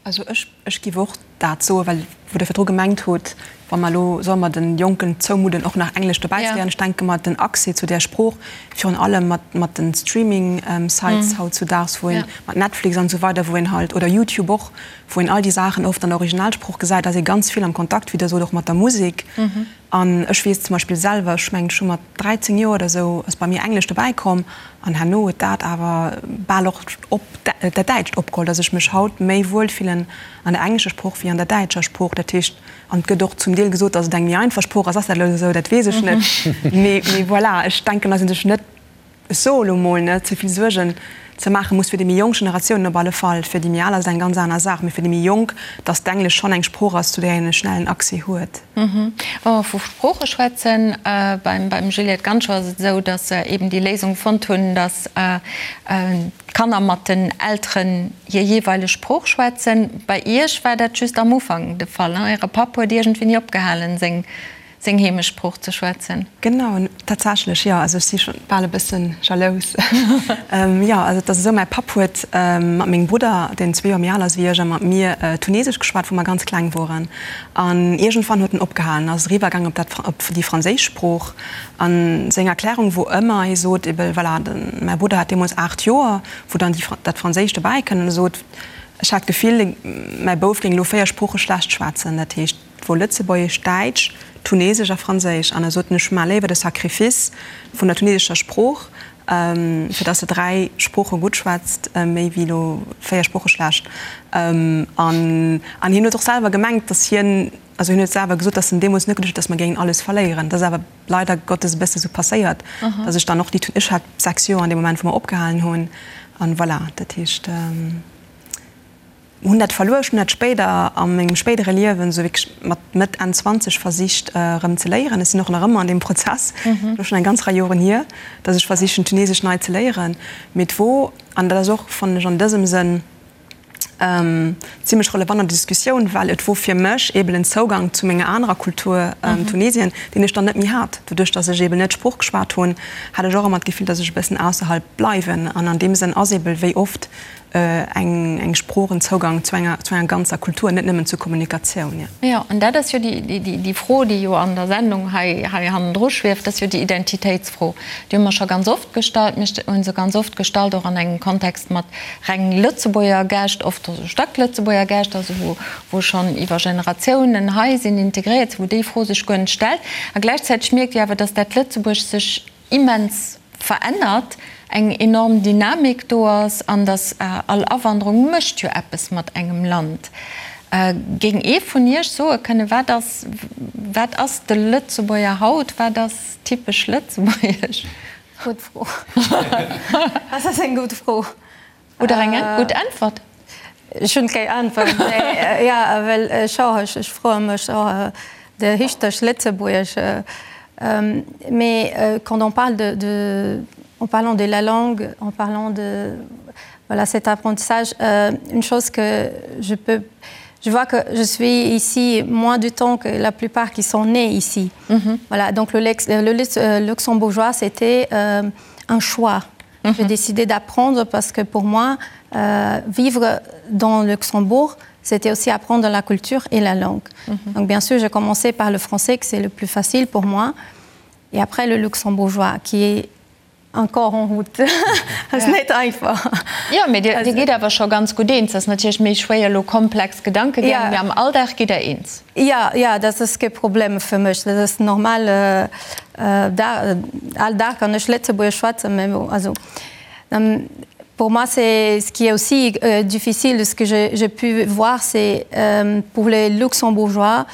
Also ech, ech giff och dat soen, well wou Der virdru gemengt hutt, wa mer elo, solle mer den Jonken zoumudden och nach Englesch dobäi ze léieren, ech denke mer, den Accès zu där Sprooch, virun allem mat, mat den Streaming Sites hautzudaags, wou een, mat Netflix an esou weider, wou een halt, oder YouTube och, wou een all déi Saachen oft an der Originalsprooch gesäit, ass ee ganz vill am Kontakt, wéi Der sot, och mat der Musek. An ech weess zum Beispill selwer, ech mengen ech hu mat 13 Joer oder esou ass bei mir Englesch dobäi komm an herno huet dat awer bal och op dat Däitscht opgeholl, dass ech mech haut méi wuel fillen an der englescher Sprooch wéi an der däitscher Sprooch. Dat heescht, an et gëtt och zum Deel gesot, dass et eng méi einfach Sprooch ass. Ass dat elo esou? Dat weess ech net. Mee voilà, ech denken, dass ee sech net ech soe lo mol, net ze vill Suergen ze maache muss fir déi méi jonk Generatiounen op alle Fall. Fir déi méi al ass et eng ganz aner Saach, mee fir déi méi jonk, datt d'Englesch schonn eng Sprooch ass, zu där een e schnellen Accès huet. Wa mer vu Sprooche schwätzen, beim Juliette Ganschow ass et esou, datt se eben déi Léisung fonnt hunn, datt d'Kanner mat den Elteren hir jeeweileg Sprooch schwätzen. Bei Iech war dat just am Ufank de Fall, Äre Papp huet iergendwéini opgehalen, seng seng Heemechtssprooch ze schwätzen. Genau, tatsächlech, jo. Also ech si scho bal e bësse jalous. Jo, also et ass esou, mäi Papp huet mat mengem Brudder, deen zwee Joer méi al ass wéi ech, a mat mir Tunesesch geschwat, wou mer ganz kleng woren. An iergendwann huet en opgehalen, ass eriwwer gaangen op dat, op déi franséisch Sprooch. A seng Erklärung wor ëmmer, hie sot ebe voilà, mäi Brudder hat deemools 8 Joer, wou dann déi, dat Franséischt dobäi kënnt, an e sot, ech hat d'Gefill, mäi Bouf géing elo 4 Sprooche schlecht schwätzen. Dat heescht, Et wor Lëtzebuergesch, Däitsch, Tunesesch a Franséisch. An e sot, Ech maache léiwer de Sacrifice vun der tunesescher Sprooch, fir dass se 3 Sprooche gutt schwätzt, méi wéi elo 4 Sprooche schlecht. An an hien huet och selwer gemengt, dass hien, also hien huet selwer gesot, dass en deemools net geduecht huet, dass mer géingen alles verléieren. Dat ass awer leider Gottes e bësse sou passéiert, dass ech dann och déi, ech hat 6 Joer an deem Moment, wou mer opgehalen hunn. An voilà, dat heescht. Hunn dat verluer. Ech hunn dat spéider a mengem spéidere Liewen, esou wierklech mat Mëtt, Enn 20 versicht erëm ze léieren. Ech sinn och nach ëmmer an deem Prozess, elo schonn eng ganz Rei Joren hier, datt ech versichen Tunesesch nei ze léieren. Mee et wor, an dat ass och, fannen ech, an dësem Sënn zimlech relevant an der Diskussioun, well et wor fir mech eeben en Zougang zu menger anerer Kultur, Tunesien, deen ech dann net méi hat. Doduerch, datt ech eeben net d'Sprooch geschwat hunn, hat ech och ëmmer d'Gefill, datt ech e bëssen ausserhalb bleiwen. An an deem Sënn ass eebel wéi oft eng eng Sprooch en Zougang zu enger zu enger ganzer Kultur, net nëmmen zur Kommunikatioun, jo. Jo, an dat ass jo déi déi déi Fro, déi jo an der Sendung hei hei hannendru schwieft, dat ass jo déi Identitéitsfro. Déi hu mer scho ganz oft gestallt. Mir hu se ganz oft gestallt och an engem Kontext mat reng Lëtzebuerger Gäscht, oft also staark Lëtzebuerger Gäscht, also wou wou schonn iwwer Generatiounen hei sinn, integréiert sinn, wou déi Fro sech guer net stellt. A gläichzäiteg mierkt Dir awer, dass dat Lëtzebuerg sech immens verännert, eng enorm Dynamik do ass an dass all Awanderung mécht jo eppes mat engem Land. Géing ee vun Iech soe kënnen, wat ass, wat ass de Lëtzebuerger haut, wat ass typesch lëtzebuergesch? Gutt Fro. Dat ass eng gutt Fro. Oder eng gutt Äntwert? Ech hunn keng Äntwert. Mee jo, well ech och, ech froe mech och de richteg Lëtzebuergesch. Mais quand on parle de, de, en parlant de la langue, en parlant de voilà cet apprentissage, une chose que je peux je vois que je suis ici moins du temps que la plupart qui sont nés ici. Mm -hmm. Voilà, donc le, le, le luxembourgeois, c'était euh, un choix. Mm -hmm. J'ai décidé d'apprendre parce que pour moi, euh, vivre dans Luxembourg, c'était aussi apprendre la culture et la langue. Mm -hmm. Donc bien sûr, j'ai commencé par le français, que c'est le plus facile pour moi, et après le luxembourgeois, qui est. Encore en route. Ass net einfach. Jo, mee Dir gitt awer scho ganz gutt eens. Ass natierlech méi schwéier elo komplex Gedankegäng, mee am Alldag gitt Der eens. Jo, jo, dat ass kee Problem fir mech. Dat ass normal. All Dag kann ech Lëtzebuergesch schwätzen, mee bon, also pour moi c'est ce qui est aussi difficile, ce que j'ai pu voir, c'est pour les Luxembourgeois,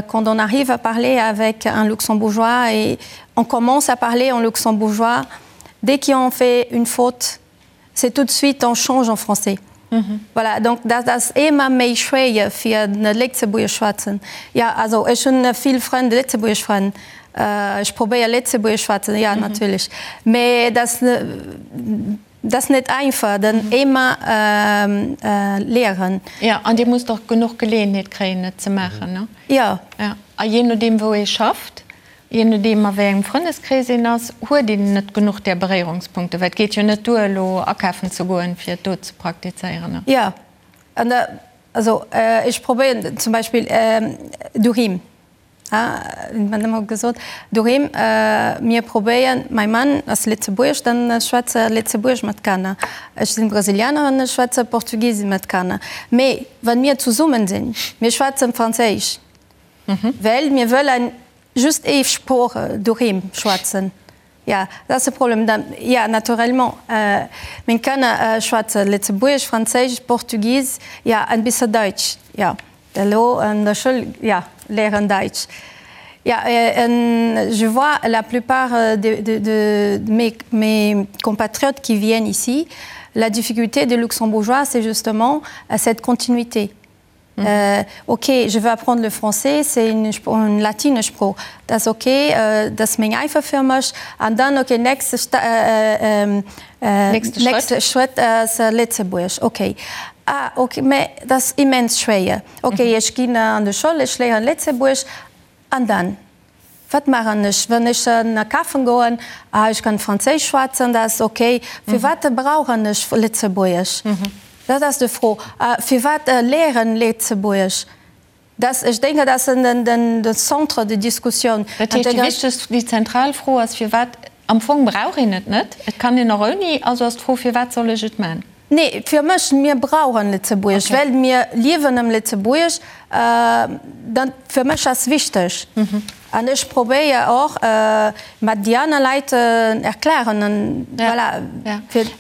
quand on arrive à parler avec un Luxembourgeois et on commence à parler en luxembourgeois, dès qu'on fait une faute, c'est tout de suite on change en français. Mhm. Voilà, donc dat ass ëmmer méi schwéier fir net Lëtzebuergesch schwätzen. Ja, also ech hunn vill Frënn, lëtzebuergesch Frënn. Äh, ech probéier Lëtzebuergesch schwätzen, ja, mhm. natierlech. Mee dat dat ass net einfach, den mhm. ëmmer ähm, äh, léieren. Ja, an Dir musst och genuch Geleeënheet kréien, et ze maachen, ne? Ja. Ja. A jee nodeem wou ee schafft, Jee nodeem a wéi engem Frëndeskrees een ass, huet een net genuch där Beréierungspunkte, well et geet jo net duer elo akafen ze goen, fir et do ze praktizéieren. Jo, an da, also ech probéieren zum Beispill doheem, mat ëmmer gesot, doheem, mir probéieren, mäi Mann ass Lëtzebuerg, dann schwätze Lëtzebuerg mat Kanner, ech sinn Brasilianerin, ech schwätze Portugis mat Kanner, mee wa mir zesummen sinn, mir schwätzen Franséisch. Well mir wëllen just ee Sprooch doheem schwätzen. Ja, dat ass de Problem. Dann, ja, naturellement, meng Kanner schwätze Lëtzebuergesch, Franséisch, Portugis, ja, en bisse Daitsch, ja, elo an der Schoul, ja, léieren Daitsch. Ja, en je vois la plupart de, de, de mes, mes compatriotes qui viennent ici, la difficulté des Luxembourgeois, c'est justement cette continuité. Mhm. Äh, ok, je veux apprendre le français, c'est une, une latine Sprooch. Dat ass ok, äh, dat ass meng einfach fir mech. An dann ok, nächste, äh, äh, äh, nächste Schrëtt, Schrëtt ass äh, Lëtzebuerg. Ok. Ah, ok, mä dat ass immens schwéier. Ok, mhm. ech ginn an de Schoul, ech léieren Lëtzebuerg. An dann? Wat maachen ech, wann ech akafen goen? Ah, ech kann Franséisch schwätzen, dat ass ok. Firwat brauchen ech Lëtzebuergesch? Dat ass de Fro. Firwat léieren Lëtzebuergesch? Dat, ech denken, dat ass den Centre de discussion. Dat heescht, déi wichtegst, déi zentral Fro ass, firwat, am Fong brauch een et net, et kann een och ouni, also ass d'Fro, firwat soll ech et man? Nee, fir mech, mir brauchen Lëtzebuerg, well mir liewen am Lëtzebuerg. Dat fir mech ass wichteg. An ech probéier och mat déi aner Leit erklären an voilà.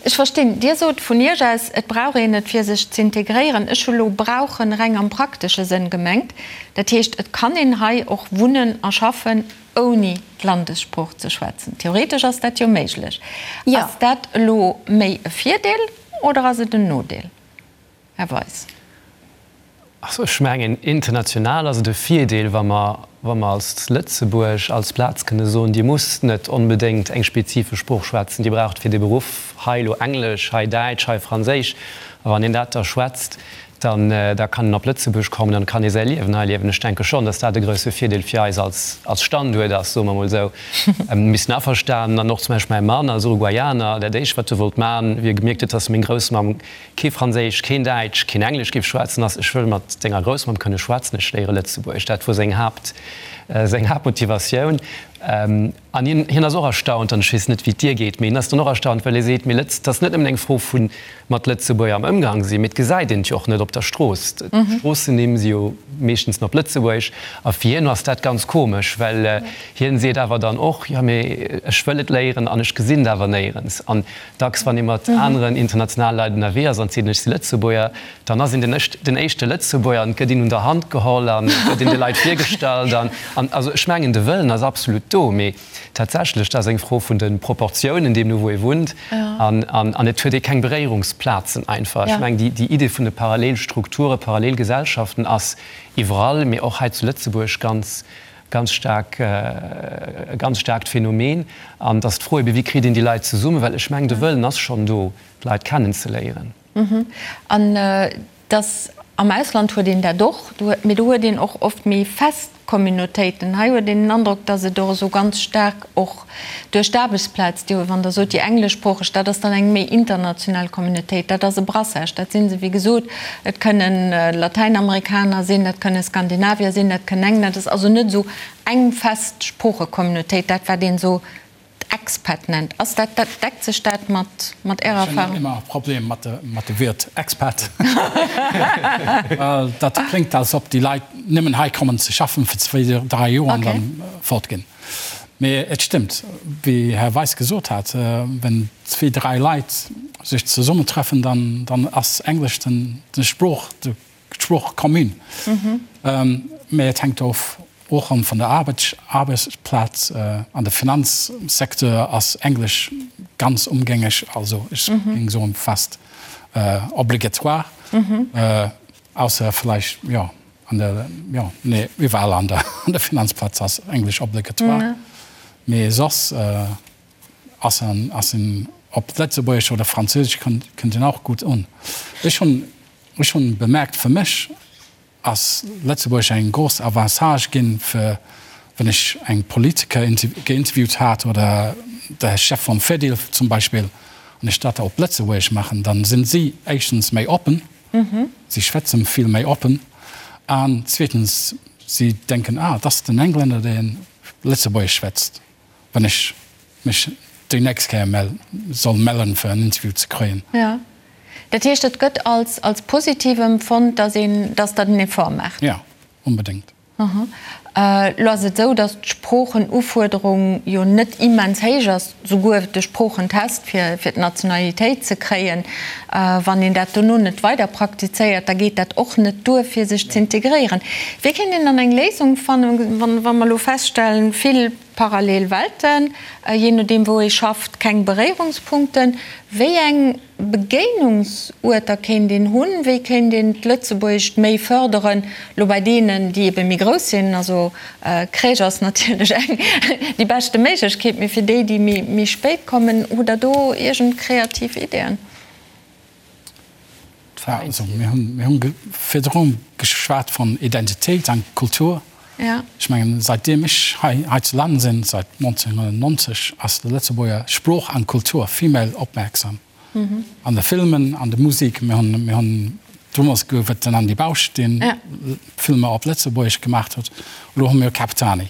Ech verstinn. Dir sot vun Iech aus, et brauch een et fir sech z'integréieren. Ech hu lo brauchen reng am praktesche Sënn gemengt. Dat heescht, et kann een hei och wunnen a schaffen, ouni d'Landessprooch ze schwätzen. Theoretesch ass dat jo méiglech. Ass dat elo méi e Virdeel oder ass et en Nodeel, Här Weis? Also ech mengen, international ass et e Virdeel, wa mer, wa mer als Lëtzebuerg als Plaz kënne soen, Dir musst net onbedéngt eng spezifesch Sprooch schwätzen, Dir braucht fir de Beruff hei elo Englesch, hei Däitsch, hei Franséisch. A wann een dat da schwätzt, dann da kann en op Lëtzebuerg kommen an kann ee säi Liewen hei liewen. Ech denke schonn, datt dat e grousse Virdeel fir eis als als Standuert ass, soe mer emol esou. Mir sinn averstanen an och zum Beispill mäi Mann als Uruguayaner, dat éischt wat e wollt man, wéi e gemierkt huet, datt meng Groussmamm kee Franséisch, keen Däitsch, keen Englesch géif schwätzen, ass, ech wëll mat denger Groussmamm kënne schwätzen, ech léiere Lëtzebuergesch. Dat wor seng Haapt seng Haaptmotivatioun. An hien hien ass och erstaunt, an ech weess net wéi et dir geet, mee hien ass dann och erstaunt, well e seet, mee Lëtz, et ass net nëmmen eng Fro vu mat Lëtzebuerger am Ëmgang sinn, mee et gesäit een et jo och net op der Strooss. D'Stroossennimm si jo meeschtens op Lëtzebuergesch. A fir hien ass dat ganz komesch, well hien seet awer dann och, jo mee ech wëll et léieren an ech gesinn et awer néierens. An dacks wann ee mat aneren internationale Leit ënnerwee ass an seet, ech si Lëtzebuerger, dann ass een den den éischte Lëtzebuerger an et gëtt een un der Hand geholl an et gëtt een de Leit virgestallt. An also ech mengen de Wëllen ass absolut do, mee Tatsächlech, dat ass eng Fro vun de Proportiounen, deemno wou ee wunnt. An et huet ee keng Beréierungsplazen einfach. Ech mengen, déi Idee vun de Parallelstrukture, Parallelgesellschaften ass iwwerall, mee och hei zu Lëtzebuerg ganz, ganz staark, e ganz staarkt Phänomen. An et ass d'Fro ebe, wéi kritt een déi Leit zesummen? Well ech mengen, de Wëllen ass schonn do, d'Leit kennenzeléieren. An Dass am Ausland huet een dat och, mee do huet een och oft méi fest Communautéiten. Hei huet een den Androck, dass et och esou ganz staark och duerch d'Aarbechtsplaz, déi, wann Der sot, déi engleschsproocheg, dat ass dann eng méi international Communautéit, dat ass e Brassage, dat si se, wéi gesot, et kënnen Latäinamerikaner sinn, dat kënne Skandinavier sinn, dat kënnen Engländer, dat ass also net esou eng fest Sproochecommunautéit, dat wat een esou. Expat nennt. Ass dat, dat, deckt sech dat mat, mat Ärer Erfahrung? Ech hunn ëmmer e Problem mat de, mat de Wuert Expat. Well dat kléngt, als ob déi Leit nëmmen hei kommen ze schaffen fir zwéi, dräi Joer an dann fortginn. Mee et stëmmt, wéi Här Weis gesot hat, wenn zwéi, dräi Leit sech zesummentreffen, dann, dann ass Englesch den, den Sprooch, de d'Sprooch commune. Mä et hänkt of och erëm vun der Aarbechtsplaz. An de Finanzsecteur ass Englesch ganz ëmgängeg, also ech géing soen fast obligatoire, ausser vläicht, jo, an der, jo, nee, iwwerall an der Finanzplaz ass Englesch obligatoire, mee soss ass en, ass en op Lëtzebuergesch oder Franséisch kënnt en och gutt un. Ech hunn Ech hunn bemerkt, fir mech ass Lëtzebuerg eng grouss Avantage ginn, fir wann ech eng Politiker geinterviewt hat oder de Chef vum Fedil zum Beispill, an ech dat op Lëtzebuergesch maachen, dann sinn si éischtens méi oppen, si schwätzen vill méi oppen, an zweetens si denken, ah, dat ass den Englänner, deen Lëtzebuergesch schwätzt. wann ech mech déi nächst Kéier soll mellen, fir en Interview ze kréien. Jo. Dat heescht, et gëtt als als positiv empfonnt, datt een, datt Der den Effort maacht? Jo, onbedéngt. Aha. Elo ass et esou, datt d'Sproochenufuerderung jo net immens héich ass, souguer de Sproochentest, fir fir d'Nationalitéit ze kréien. Wann een dat dono net weider praktizéiert, da geet dat och net duer, fir sech z'integréieren. Wéi kéint een dann eng Léisung fannen, wa mer elo feststellen, vill parallel Welten, jee nodeem wou ee schafft, keng Beréierungspunkten. Wéi eng Begéinungsuerter kéint een hunn? Wéi kéint een d'Lëtzebuergescht méi fërderen, elo bei deenen, déi ebe méi grouss sinn? Also Crèche ass natierlech eng déi beschte Méiglechkeet, mee fir déi, déi méi spéit kommen, hutt Der do iergend kreativ Ideeën? Also mir hunn, mir hunn virdru geschwat vun Identitéit an Kultur. Ech mengen, säitdeem ech hei hei zu Land sinn, säit 1990, ass de Lëtzebuerger Sprooch an Kultur vill méi opmierksam. An de Filmen, an de Musik. Mir hunn, mir hunn domols gouf et den Andy Bausch, deen Filmer op Lëtzebuergesch gemaach huet. Elo hu mir Capitani.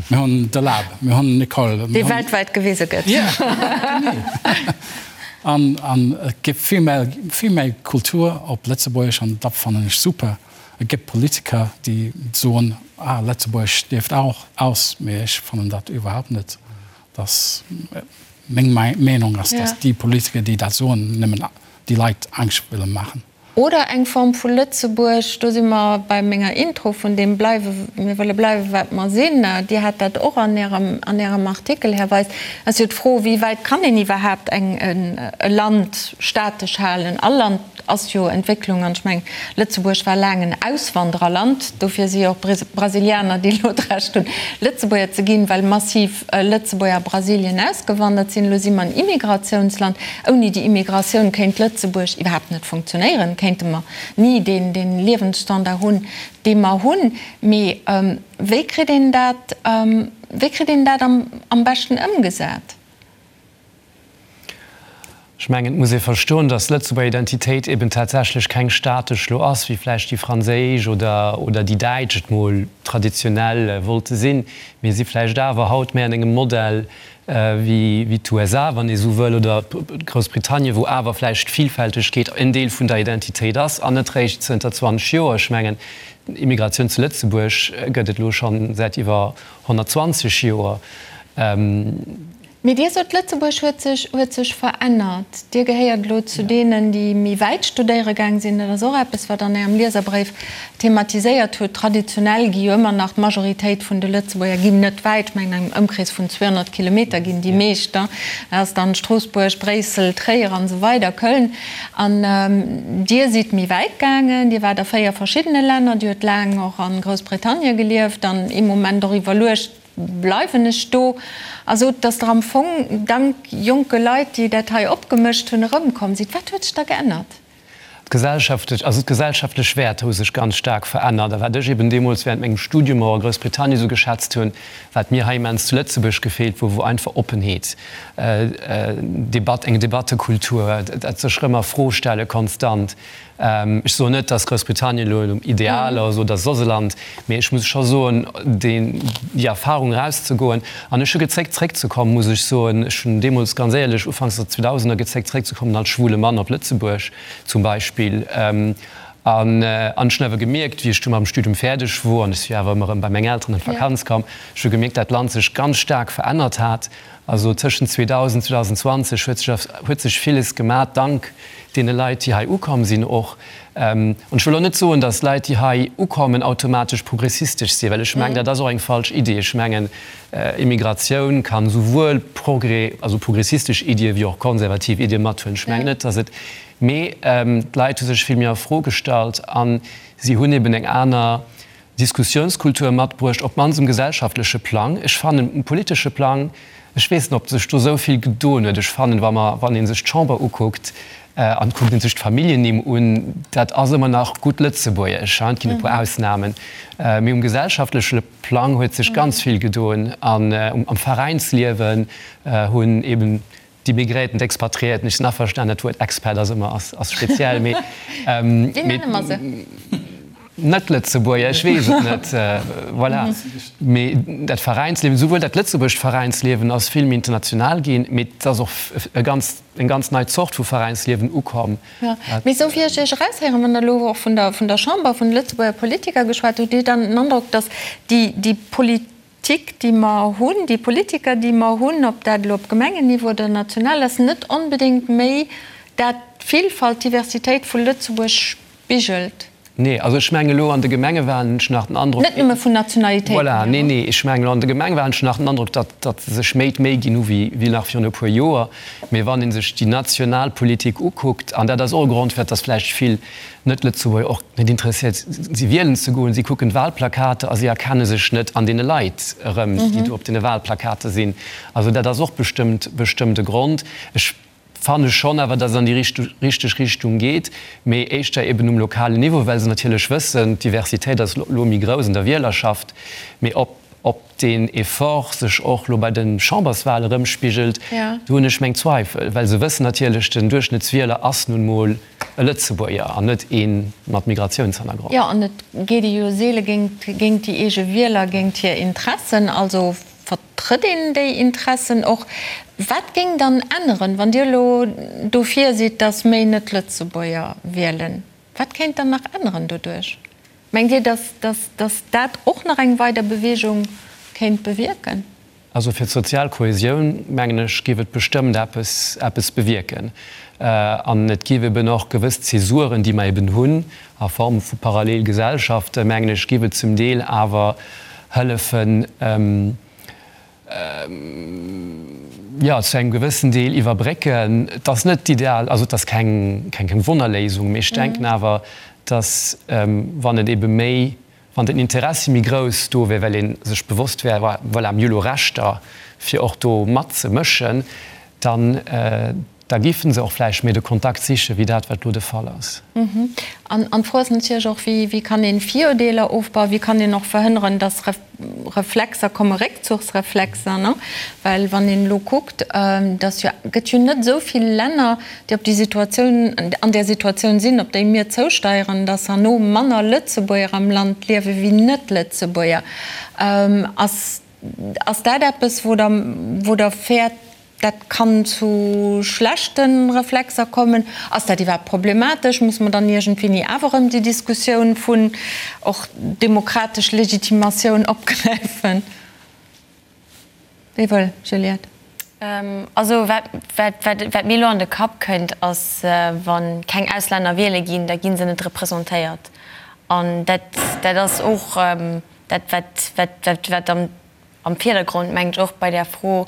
Mir hunn de Lab, mir hunn Nicole. Dee weltwäit gewise gëtt. Ja, genee. An, an et gëtt vill méi, vill méi Kultur op Lëtzebuergesch an dat fannen ech super. Et gëtt Politiker, déi soen, ah, Lëtzebuergesch stierft auch aus, mee ech fannen dat iwwerhaupt net. Dass, meng Meenung ass, dass déi Politiker, déi dat soen, nëmmen déi Leit Angscht wëlle maachen. Oder eng Form vu Lëtzebuerg, do si mer bei menger Intro vun deem bleiwe, mir wëlle bleiwe wat mer sinn. Dir hat dat och an Ärem, an Ärem Artikel, Här Weis. Ass jo d'Fro, wéi wäit kann een iwwerhaapt eng, e Land statesch halen? All Land ass jo Entwécklung an ech mengen, Lëtzebuerg war laang en Auswandererland, dofir si jo och Brasilianer, déi elo d'Recht hunn, Lëtzebuerger ze ginn, well massiv Lëtzebuerger a Brasilien ausgewandert sinn. Elo si mer en Immigratiounsland. Ouni déi Immigratioun kéint Lëtzebuerg iwwerhaapt net funktionéieren, kéinte mer ni deen Liewensstandard hunn, dee mer hunn. Mee wéi kritt een dat, wéi kritt een dat am beschten ëmgesat? Ech mengen, et muss ee verstoen, datt d'Lëtzebuerger Identitéit eben tatsächlech keng statesch lo ass, wéi vläicht déi franséisch oder oder déi däitsch et mol traditionell wollte sinn. Mir si vläicht awer haut méi an engem Modell wéi wéi d'USA, wann ee sou wëll, oder Groussbritannien, wou awer vläicht d'Villfältegkeet en Deel vun der Identitéit ass an net réischt zënter 20 Joer. Ech mengen, Immigratioun zu Lëtzebuerg gëtt et elo schonn säit iwwer 120 Joer. Mee Dir sot, Lëtzebuerg huet sech, huet sech verännert. Dir gehéiert elo zu deenen, déi méi wäit studéiere gaang sinn. Dat ass och eppes, wat an Ärem Lieserbréif thematiséiert hutt. Traditionell gi jo ëmmer nach d'Majoritéit vun de Lëtzebuerger ginn net wäit. Ech mengen, an engem Ëmkrees vun 200 Kilometer ginn déi meescht. Dat ass dann Stroossbuerg, Bréissel, Tréier an esou weider, Köln. An Dir sidd méi wäit gaangen. Dir waart a 4 verschiddene Länner. Dir huet laang och a Groussbritannien gelieft an ee Moment och iwwerluecht, Bleiwen ech do? A sot, dass Der am Fong dank jonke Leit, déi dat hei opgemëscht hunn, erëmkomm sidd. Wat huet sech da geännert? D'gesellschaftlech, also d'gesellschaftlech Wäerter hu sech ganz staark verännert. A wat ech eben deemools während mengem Studium och a Groussbritannien esou geschätzt hunn, wat mir hei immens zu Lëtzebuerg gefeelt wor, wor einfach Oppenheet, Debatt, eng Debattekultur, dat sech erëm a Fro stelle konstant. Ech soen net, datt Groussbritannien elo ideal ass oder soss e Land, mee ech muss scho soen, déi Erfahrung erauszegoen, an ech hu gezéckt zréckzekommen, muss ech soen. Ech hunn deemools ganz éierlech ufanks der Zweedausener gezéckt zréckzekommen als schwule Mann op Lëtzebuerg zum Beispill. An ech hunn awer gemierkt, wéi ech du mam Studium fäerdeg wor, an ech si jo awer ëmmer erëm bei meng Elteren an d'Vakanz komm, ech hu gemierkt, dat d'Land sech ganz staark verännert hat. Also tëschent 2000, 2020 huet sech huet sech villes gemat, dank deene Leit, déi hei ukomm sinn och. An ech wëll och net soen, datt Leit, déi hei ukommen, automatesch progressistesch sinn, well ech mengen, dat ass och eng falsch Idee. Ech mengen, Immigratioun kann souwuel progr also progressistesch Iddie wéi och konservativ Iddie mathuelen. Ech mengen net, datt et, mee d'Leit hu sech vill méi a Fro gestallt a si hunn eben eng aner Diskussiounskultur matbruecht, op d'mannst um gesellschaftleche Plang. Ech fannen, um politesche Plang, ech weess net, ob sech do esou vill gedoen huet. Ech fannen, wa mer, wann ee sech d'Chamber ukuckt an et kuckt ee sech d'Familljennimm un, dat ass ëmmer nach gutt Lëtzebuergesch, et ginn e puer Ausnamen, mee um gesellschaftleche Plang huet sech ganz vill gedoen an am Veräinsliewen hunn eben D'Immigréierten, d'Expatriéierten, ech sinn averstanen, dat Wuert Expat ass ëmmer ass speziell, mee Wéi nenne mer se? Net-Lëtzebuerger, ech weess et net, voilà. Mee dat Veräinsliewen, souwuel dat lëtzebuergescht Veräinsliewen ass vill méi international ginn, mee et ass och e ganz, eng ganz nei Zort vu Veräinsliewen ukomm. Jo, mee esou wéi ech Iech eraushéieren, wann Der elo och vun der, vun der Chamber, vun de Lëtzebuerger Politiker geschwat hutt, hutt Dir dann den Androck, datt déi, déi Poli. Tik, déi mer hunn, déi Politiker, déi mer hunn, ob dat elo op Gemengenniveau oder national ass, net onbedéngt méi dat d'Villfalt, d'Diversitéit vu Lëtzebuerg spigelt. Nee, also ech mengen elo an de Gemengewahlen hunn ech nach den Androck. Net nëmme vun Nationalitéiten hier. Voilà, nee, nee, ech mengen elo an de Gemengewahlen hunn ech nach den Androck, datt, datt se sech méi d'Méi ginn hu wéi, wéi nach virun e puer Joer. Mee wann ee sech déi national Politik ukuckt, an dat ass och e Grond, firwat datt vläicht vill Net-Lëtzebuerger och net interesséiert si wielen ze goen. Si kucken d'Wahlplakater a si erkenne sech net an deene Leit erëm, déi do op deene Wahlplakater sinn. Also dat ass och bestëmmt bestëmmt e Grond. Ech fanne schonn awer, datt et an déi richteg Richtung geet, mee éischter eben um lokalen Niveau, well se natierlech wëssen, d'Diversitéit ass elo méi grouss an der Wielerschaft. Mee ob ob deen Effort sech och elo bei de Chamberswahle erëmspigelt, do hunn ech meng Zweifel, well se wëssen natierlech, den Duerchschnëttswieler ass nun mol e Lëtzebuerger an net ee mat Migratiounshannergrond. Jo, an et geet ee jo seele géint déi eege Wieler, géint hir Interessen. Also vertrëtt een déi Interessen och. Wat géing dann änneren, wann Dir elo dofir sidd, datt méi Net-Lëtzebuerger wielen? Wat kéint dann nach änneren doduerch? Mengt Dir, datt dat och nach eng weider Beweegung kéint bewierken? Also fir d'sozial Kohäsioun, mengen ech, géif et bestëmmt eppes, eppes bewierken. An et géif eben och gewëss Zäsuren, déi mer eben hunn a Form vu Parallelgesellschaften, mengen ech, géif et zum Deel awer hëllefen, jo, zu engem gewëssen Deel iwwerbrécken. Et ass net d'ideal, also et ass keng, keng Wonnerléisung, mee ech denken awer, dass, wann et ebe méi Wann den Interessi méi grouss do wär, well ee sech bewosst wär, voilà, mir hu lo Rechter, fir och do matzemëschen, dann, da géife se och vläicht méi de Kontakt sichen, wéi dat, wat lo de Fall ass. An d'Fro ass natierlech och, wéi kann ee Virurdeeler ofbauen, wéi kann een och verhënneren, dass Reflexer kommen, Réckzuchsreflexer, ne? Well wann een elo kuckt, dass jo, gëtt jo net esou vill Länner, déi op déi Situatioun, an där Situatioun sinn, op déi mir zousteieren, dass herno manner Lëtzebuerger am Land liewe wéi Net-Lëtzebuerger. Ass, ass dat eppes, wou Der, wou Der fäert, dat kann zu schlechte Reflexer kommen? Ass dat iwwerhaapt problematesch? Muss mer dann iergendwéini awer erëm déi Diskussioun vun och demokratesch Legitimatioun opgräifen? Wéi wëll, Juliette? Also wat, wat, wat mir elo an de Kapp kënnt, ass, wa keng Auslänner wiele ginn, da gi se net representéiert. An dat, dat ass och dat, wat, wat, wat am, am Virdergrond, mengen ech, och bei där Fro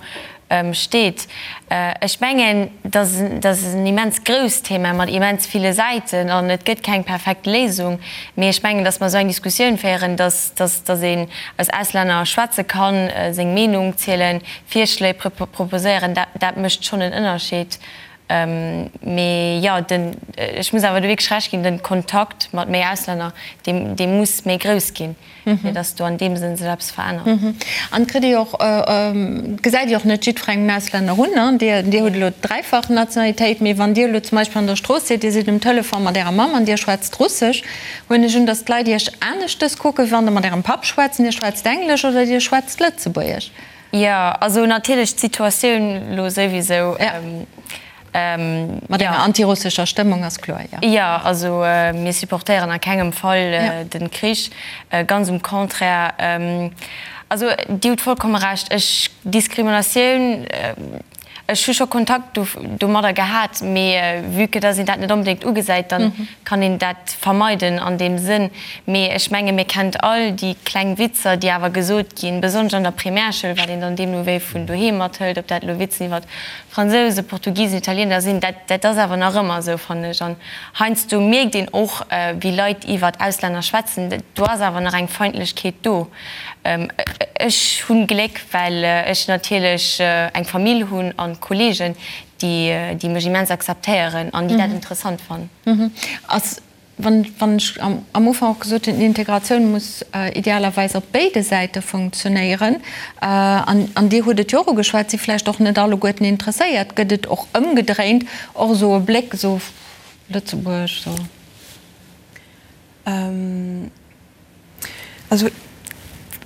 steet. Ech mengen, dat ass en immens grousst Thema mat immens ville Säiten an et gëtt keng perfekt Léisung. Mee ech mengen, datt mer esou eng Diskussioun féieren, datt een als Auslänner schwätze kann, seng Meenung zielen, Virschléi proposéieren, dat mécht schonn en Ënnerscheed. Mee jo, den, ech muss awer do wierklech Recht ginn, den Kontakt mat méi Auslänner, dee, dee muss méi grouss ginn, fir datt do an deem Sënn sech eppes verännert. An kritt Dir och, gesäit Dir och net jiddwerengem Auslänner un, ne? Dir, Dir hutt elo dräifach Nationalitéit, mee wann Dir elo zum Beispill an der Strooss sidd, Dir sidd um Telefon mat Ärer Mamm an Dir schwätzt Russesch, huelen ech un, datt d'Leit Iech aneschtes kucken, wéi wann Der mat Ärem Papp schwätzt an Dir schwätzt Englesch oder Dir schwätzt Lëtzebuergesch. Jo, also natierlech d'Situatioun elo souwisou. Mat enger antirussescher Stëmmung ass kloer, jo. Jo, also mir supportéieren a kengem Fall de Krich, ganz um Contraire. Also Dir hutt vollkomme Recht, ech, Diskriminatioun, ech hu scho Kontakt domadder gehat, mee vue que dass een dat net onbedéngt ugesäit, dann kann een dat vermeiden an deem Sënn. Mee ech menge mir kennt all déi kleng Witzer, déi awer gesot ginn, besonnesch an der Primärschoul, wat een dann deemno wéi vun doheem mathëlt, ob dat elo Witzen iwwer Fransousen, Portugisen, Italiener sinn, dat dat ass awer nach ëmmer esou, fannen ech. An heiansdo mierkt een och, wéi Leit iwwer Auslänner schwätzen, do ass awer nach eng Feindlechkeet do. Ech hunn Gléck, well ech natierlech eng Famill hunn an Kollegen, déi déi mech immens akzeptéieren an déi dat interessant fannen. Ass Wann ech am Ufank och gesot hunn, d'Integratioun muss idealerweis op béide Säite funktionéieren, an Dir hutt et jo och ugeschwat, si vläicht och net alleguerten interesséiert, gëtt et och ëmgedréint och esou e Bléck, esou Lëtzebuerg, esou. Also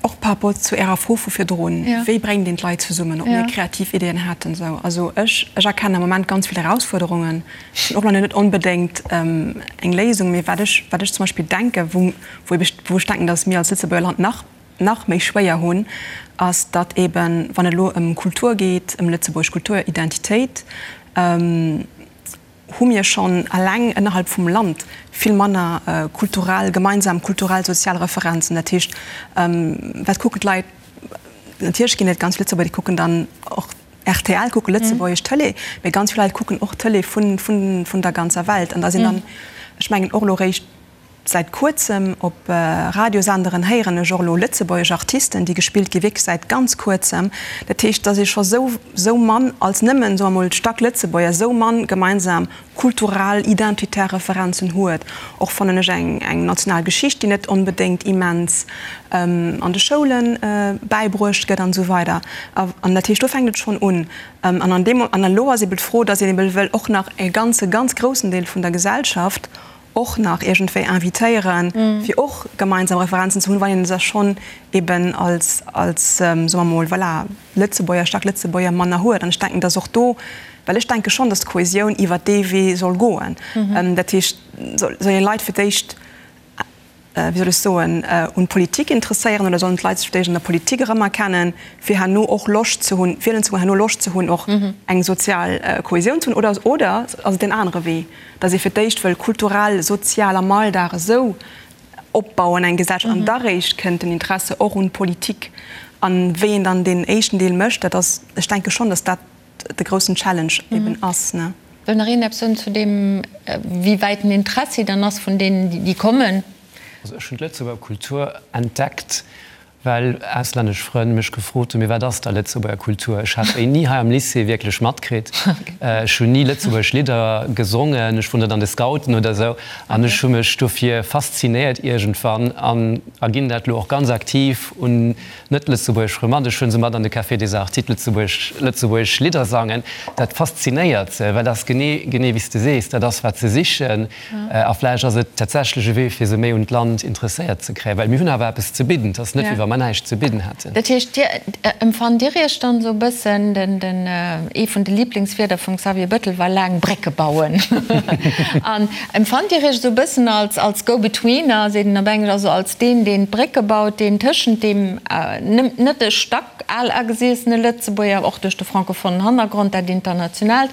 och par rapport zu Ärer Fro vu virdrun, wéi bréngt een d'Leit zesummen, ob mir kreativ Ideeën hätten esou. Also ech, ech erkennen am Moment ganz vill Erausfuerderungen. Ech hunn och nach net onbedéngt eng Léisung, mee wat ech, wat ech zum Beispill denken, wou, wou ech, wou ech denken, datt mir als Lëtzebuerger Land nach, nach méi schwéier hunn, ass, datt eeben, wann et elo ëm Kultur geet, ëm lëtzebuergesch Kultur, Identitéit, hu mir schonn eleng ënnerhalb vum Land vill manner kulturell, gemeinsam kulturell, sozial Referenzen. Dat heescht, wat kucken d'Leit? Natierlech ginn et ganz vill Lëtzebuerger, déi kucken dann och rtl, kucke lëtzebuergesch Tëlee, mee ganz vill Leit kucken och Tëlee vun der ganzer Welt. An da sinn dann, ech mengen och elo réischt, Säit kuerzem op Radiosenderen héieren ech och elo lëtzebuergesch Artisten, déi gespillt gi, wierklech säit ganz kuerzem. Dat heescht, dass ee scho sou, sou mann als nëmmen, soe mer mol, stack Lëtzebuerger, sou mann gemeinsam kulturell, identitär Referenzen huet. Och fannen ech eng, eng national Geschicht, déi net onbedéngt immens an de Schoule bäibruecht gëtt an esou weider. An dat heescht, do fänkt et schonn un. An an deem, an elo ass eeben d'Fro, dass een eeben wëll och nach e ganze, ganz groussen Deel vun der Gesellschaft och nach iergendwéi invitéieren, fir och gemeinsam Referenzen ze hunn, wann een se schonn eben als, als, soe mer mol, voilà, Lëtzebuerger, staark Lëtzebuerger manner huet. An ech denken, dass och do, well ech denke schonn, dass d'Kohesioun iwwert dee Wee soll goen. Dat heescht, soll een Leit fir d'éischt, wéi soll ech soen, un d'Politik interesséieren oder sollen d'Leit sech fir d'éischt an der Politik erëmerkennen, fir herno och Loscht ze hunn, wielen ze goen, herno Loscht ze hunn, och eng sozial Kohesioun ze hunn? Oder, oder ass et deen anere Wee, datt ee fir d'éischt wëll kulturell, sozial am Alldag esou opbauen, eng Gesellschaft, an da réischt kënnt den Interesse och un d'Politik? An wéi een dann deen éischten Deel mécht, dat ass, ech denke schonn, datt dat de groussen Challenge eben ass. Wëll nach een eppes soen zu deem, wéi wäit den Interessi dann ass vun deenen, déi kommen? Also ech hunn d'Lëtzebuerger Kultur entdeckt, well auslännesch Frënn mech gefrot hunn, mee wat ass da Lëtzebuerger Kultur? Ech hat déi ni hei am Lycée wierklech matkritt. Ech hunn ni lëtzebuergesch Lidder gesongen, ech wor net an de Scouten oder esou. An ech hu mech dofir faszinéiert iergendwann an a ginn dat elo och ganz aktiv un Net-lëtzebuergesch Frënn mat. Ech hunn se mat an de Café des Arts, d'lëtzebuergesch lëtzebuergesch Lidder sangen. Dat faszinéiert se, well dat ass genee, genee wéi s de sees, dat ass wat se sichen. A vläicht ass et tatsächlech e Wee, fir se méi un d'Land interesséiert ze kréien, well mir hunn awer eppes ze bidden. Et ass net, wéi wa mer näischt ze bidden hätten. Dat heescht, Dir empfannt Dir Iech dann esou e bëssen, den, den, ee vun de Lieblingswierder vum Xavier Bettel war laang Brécke bauen. An empfannt Dir Iech esou e bëssen als, als Go-Betweener, seet een op Englesch, also als deen, deen d'Brécke baut, deen tëschent deem net e stack al agesiessene Lëtzebuerger, och duerch de francophonen Hannergrond, dat Internationaalt,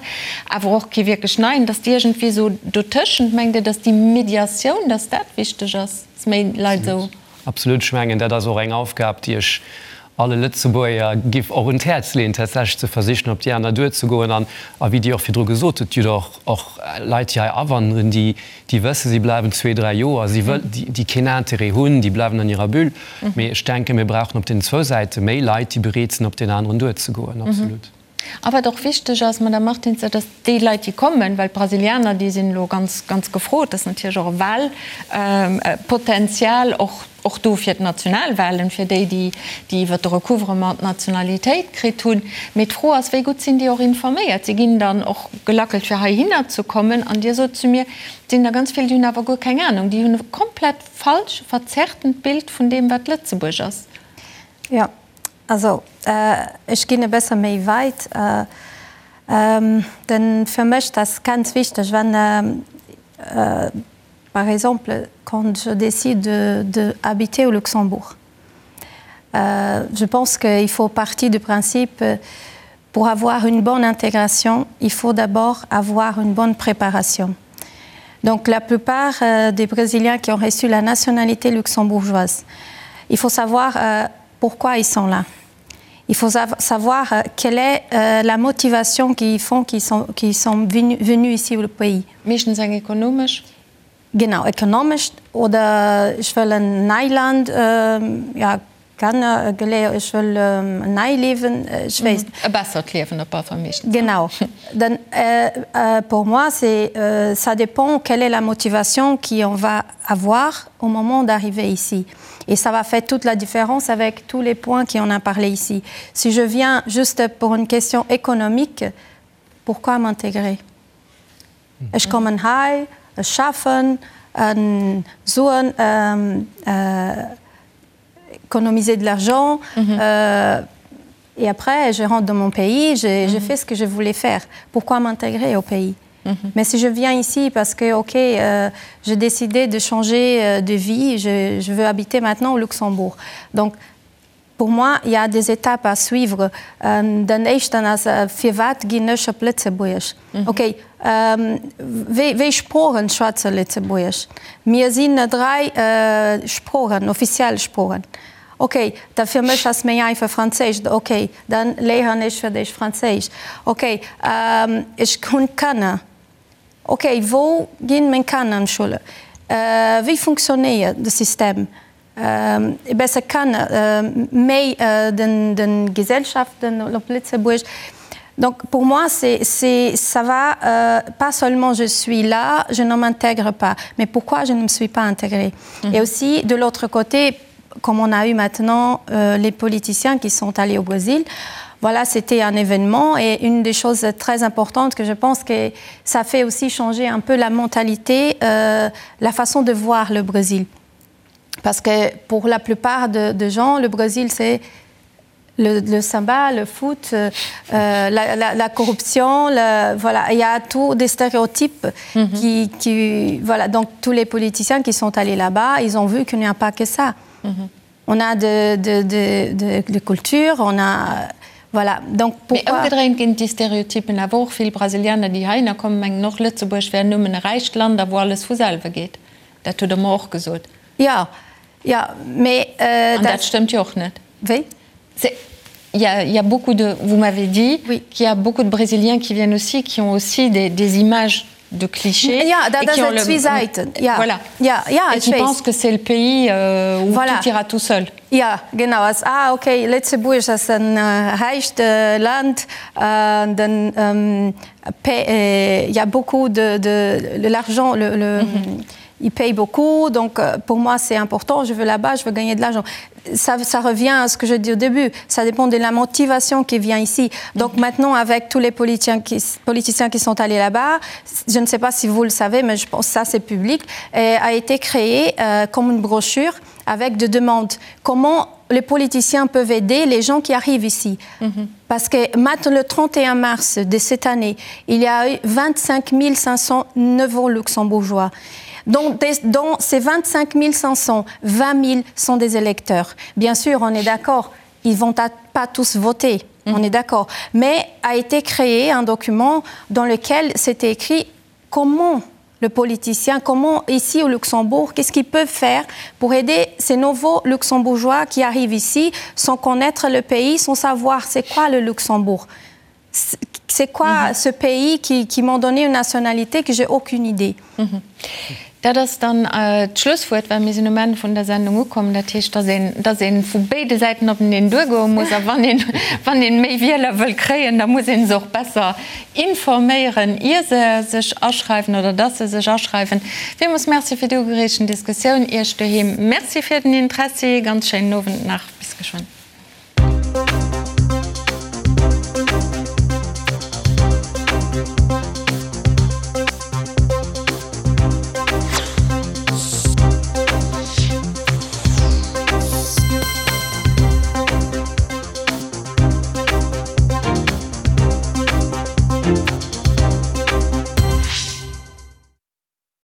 awer och kee wierklech Neien, datt déi iergendwéi esou dotëschent, mengt Dir, datt déi Mediatioun, datt dat wichteg ass, datt méi Leit esou. Absolut. Ech mengen, dat ass och eng Aufgab, déi ech alle Lëtzebuerger giff och un d'Häerz leeën, tatsächlech ze versichen, op déi aner duerzegoen. An, a wéi Dir och virdru gesot hutt, Dir hutt och, och Leit, déi hei awanderen, déi, déi wëssen, si bleiwen zwee, dräi Joer, si wëll, déi, déi keen Intérêt hunn, déi bleiwen an hirer Bulle. Mee ech denken, mir brauchen op deenen zwou Säite méi Leit, déi bereet sinn, op deen aneren duerzegoen. Absolut. A wat och wichteg ass, Madame Martins, dat ass déi Leit, déi kommen, well d'Brasilianer, déi sinn elo ganz, ganz gefrot, dat ass natierlech och e Wahlpotenzial, och, och do fir d'Nationalwahlen, fir déi, déi, déi iwwert de Recouvrement d'Nationalitéit kritt hunn. Mee d'Fro ass, wéi gutt sinn déi och informéiert? Si ginn dann och gelackelt, fir heihinner ze kommen. An Dir sot zu mir, et sinn der ganz vill, déi hunn awer guer keng Anung, déi hunn e komplett falsch, verzerrtent Bild vun deem, wat Lëtzebuerg ass. Jo. Also, ech ginn e bësse méi weit. Den, fir mech, dat ass ganz wichteg, wenn, par exemple, quand je décide de, de habiter au Luxembourg, je pense qu'il faut partir du principe, pour avoir une bonne intégration, il faut d'abord avoir une bonne préparation. Donc la plupart des Brésiliens qui ont reçu la nationalité luxembourgeoise, il faut savoir pourquoi ils sont là. Il faut savoir quelle est la motivation qui font qu'ils sont, qui sont venus, venus ici au pays. Meeschtens eng ekonomesch? Genau, ekonomesch oder ech wëll en nei Land, ja, Kanner geléiert, ech wëll en nei Liewen, ech weess. E bessert Liewen op alle Fall meeschtens. Genau. Dann pour moi c'est ça dépend quelle est la motivation qui on va avoir au moment d'arriver ici. Et ça va faire toute la différence avec tous les points qui on a parlé ici. Si je viens juste pour une question économique, pourquoi m'intégrer? Ech kommen hei, ech schaffen, Suen, économiser de l'argent et après je rentre dans mon pays, j'ai fait ce que je voulais faire. Pourquoi m'intégrer au pays? Mais si je viens ici parce que ok, j'ai décidé de changer de vie, je, je veux habiter maintenant au Luxembourg. Donc pour moi, il y a des étapes à suivre. Den éischten ass, firwat ginn ech op Lëtzebuerg? Ok, wéi, wéi Sproochen schwätze Lëtzebuerg? Mir sinn 3 Sproochen, offiziell Sproochen. Ok, da fir mech ass méi einfach Franséisch. Ok, dann léieren ech fir d'éischt Franséisch. Ok, ech hunn Kanner. Ok, wou ginn meng Kanner an d'Schoul? Wéi funktionéiert de System? E besse kann méi den den Gesellschaften op Lëtzebuerg. Donc pour moi c'est c'est ça va pas seulement je suis là, je ne m'intègre pas, mais pourquoi je ne me suis pas intégrée? Et aussi de l'autre côté, comme on a eu maintenant les politiciens qui sont allés au Brésil, voilà c'était un événement et une des choses très importantes que je pense que ça fait aussi changer un peu la mentalité, la façon de voir le Brésil. Parce que pour la plupart de, de gens, le Brésil c'est le, le samba, le foot, euh, la, la, la corruption, le, voilà, il y a tout des stéréotypes mm -hmm. qui, qui voilà, donc tous les politiciens qui sont allés là-bas, ils ont vu qu'il n'y a pas que ça. Mm -hmm. On a de, de, de, de, de culture, on a voilà, donc pourquoi. Mee ëmgedréint ginn déi Stereotypen awer och. Vill Brasilianer, déi heihinner kommen, mengen och, Lëtzebuerg wär nëmmen e räicht Land a wou alles vu selwe geet. Dat hutt Der mer och gesot. Jo, jo, mee dat. An dat stëmmt jo och net. Wéi? Il y a, il y a beaucoup de, vous m'avez dit oui. qu'il y a beaucoup de Brésiliens qui viennent aussi, qui ont aussi des, des images de clichés. Ja, dat ass et zwee Säiten. Ja. Voilà. Ja, ja, et qui pensent que c'est le pays euh, où voilà. tout ira tout seul. Ja, genau. Ass, ah, okay, Lëtzebuerg ass en räicht Land, den ähm, il y a beaucoup de, de, de l'argent, le, le, mm -hmm. ils payent beaucoup, donc pour moi c'est important, je veux là-bas, je veux gagner de l'argent. Ça, ça revient à ce que je dis au début, ça dépend de la motivation qui vient ici. Donc maintenant, avec tous les politiciens qui, politiciens qui sont allés là-bas, je ne sais pas si vous le savez, mais je pense que ça c'est public, et a été créé euh, comme une brochure avec des demandes. Comment les politiciens peuvent aider les gens qui arrivent ici. Mm -hmm. Parce que maintenant, le 31 mars de cette année, il y a eu 25 500 nouveaux luxembourgeois. Donc, dans ces 25 500, 20 000 sont des électeurs. Bien sûr, on est d'accord, ils vont pas tous voter, mm -hmm. on est d'accord. Mais a été créé un document dans lequel c'était écrit comment le politicien, comment ici au Luxembourg, qu'est-ce qu'ils peuvent faire pour aider ces nouveaux luxembourgeois qui arrivent ici sans connaître le pays, sans savoir c'est quoi le Luxembourg. C'est quoi ce pays qui, qui m'ont donné une nationalité que j'ai aucune idée. Dat ass dann d'Schlusswuert, well mir sinn um Enn vun der Sendung ukomm. Dat heescht, dass een, dass ee vu béide Säiten openeen duergoe muss. A wann een, wann een méi Wieler wëll kréien, da muss ee se och besser informéieren, ier se sech aschreiwen oder dass se sech aschreiwen. Villmools Merci fir déi ugereegten Diskussioun. Iech doheem Merci fir den Interessi. Ganz schéinen Owend nach. Bis geschwënn.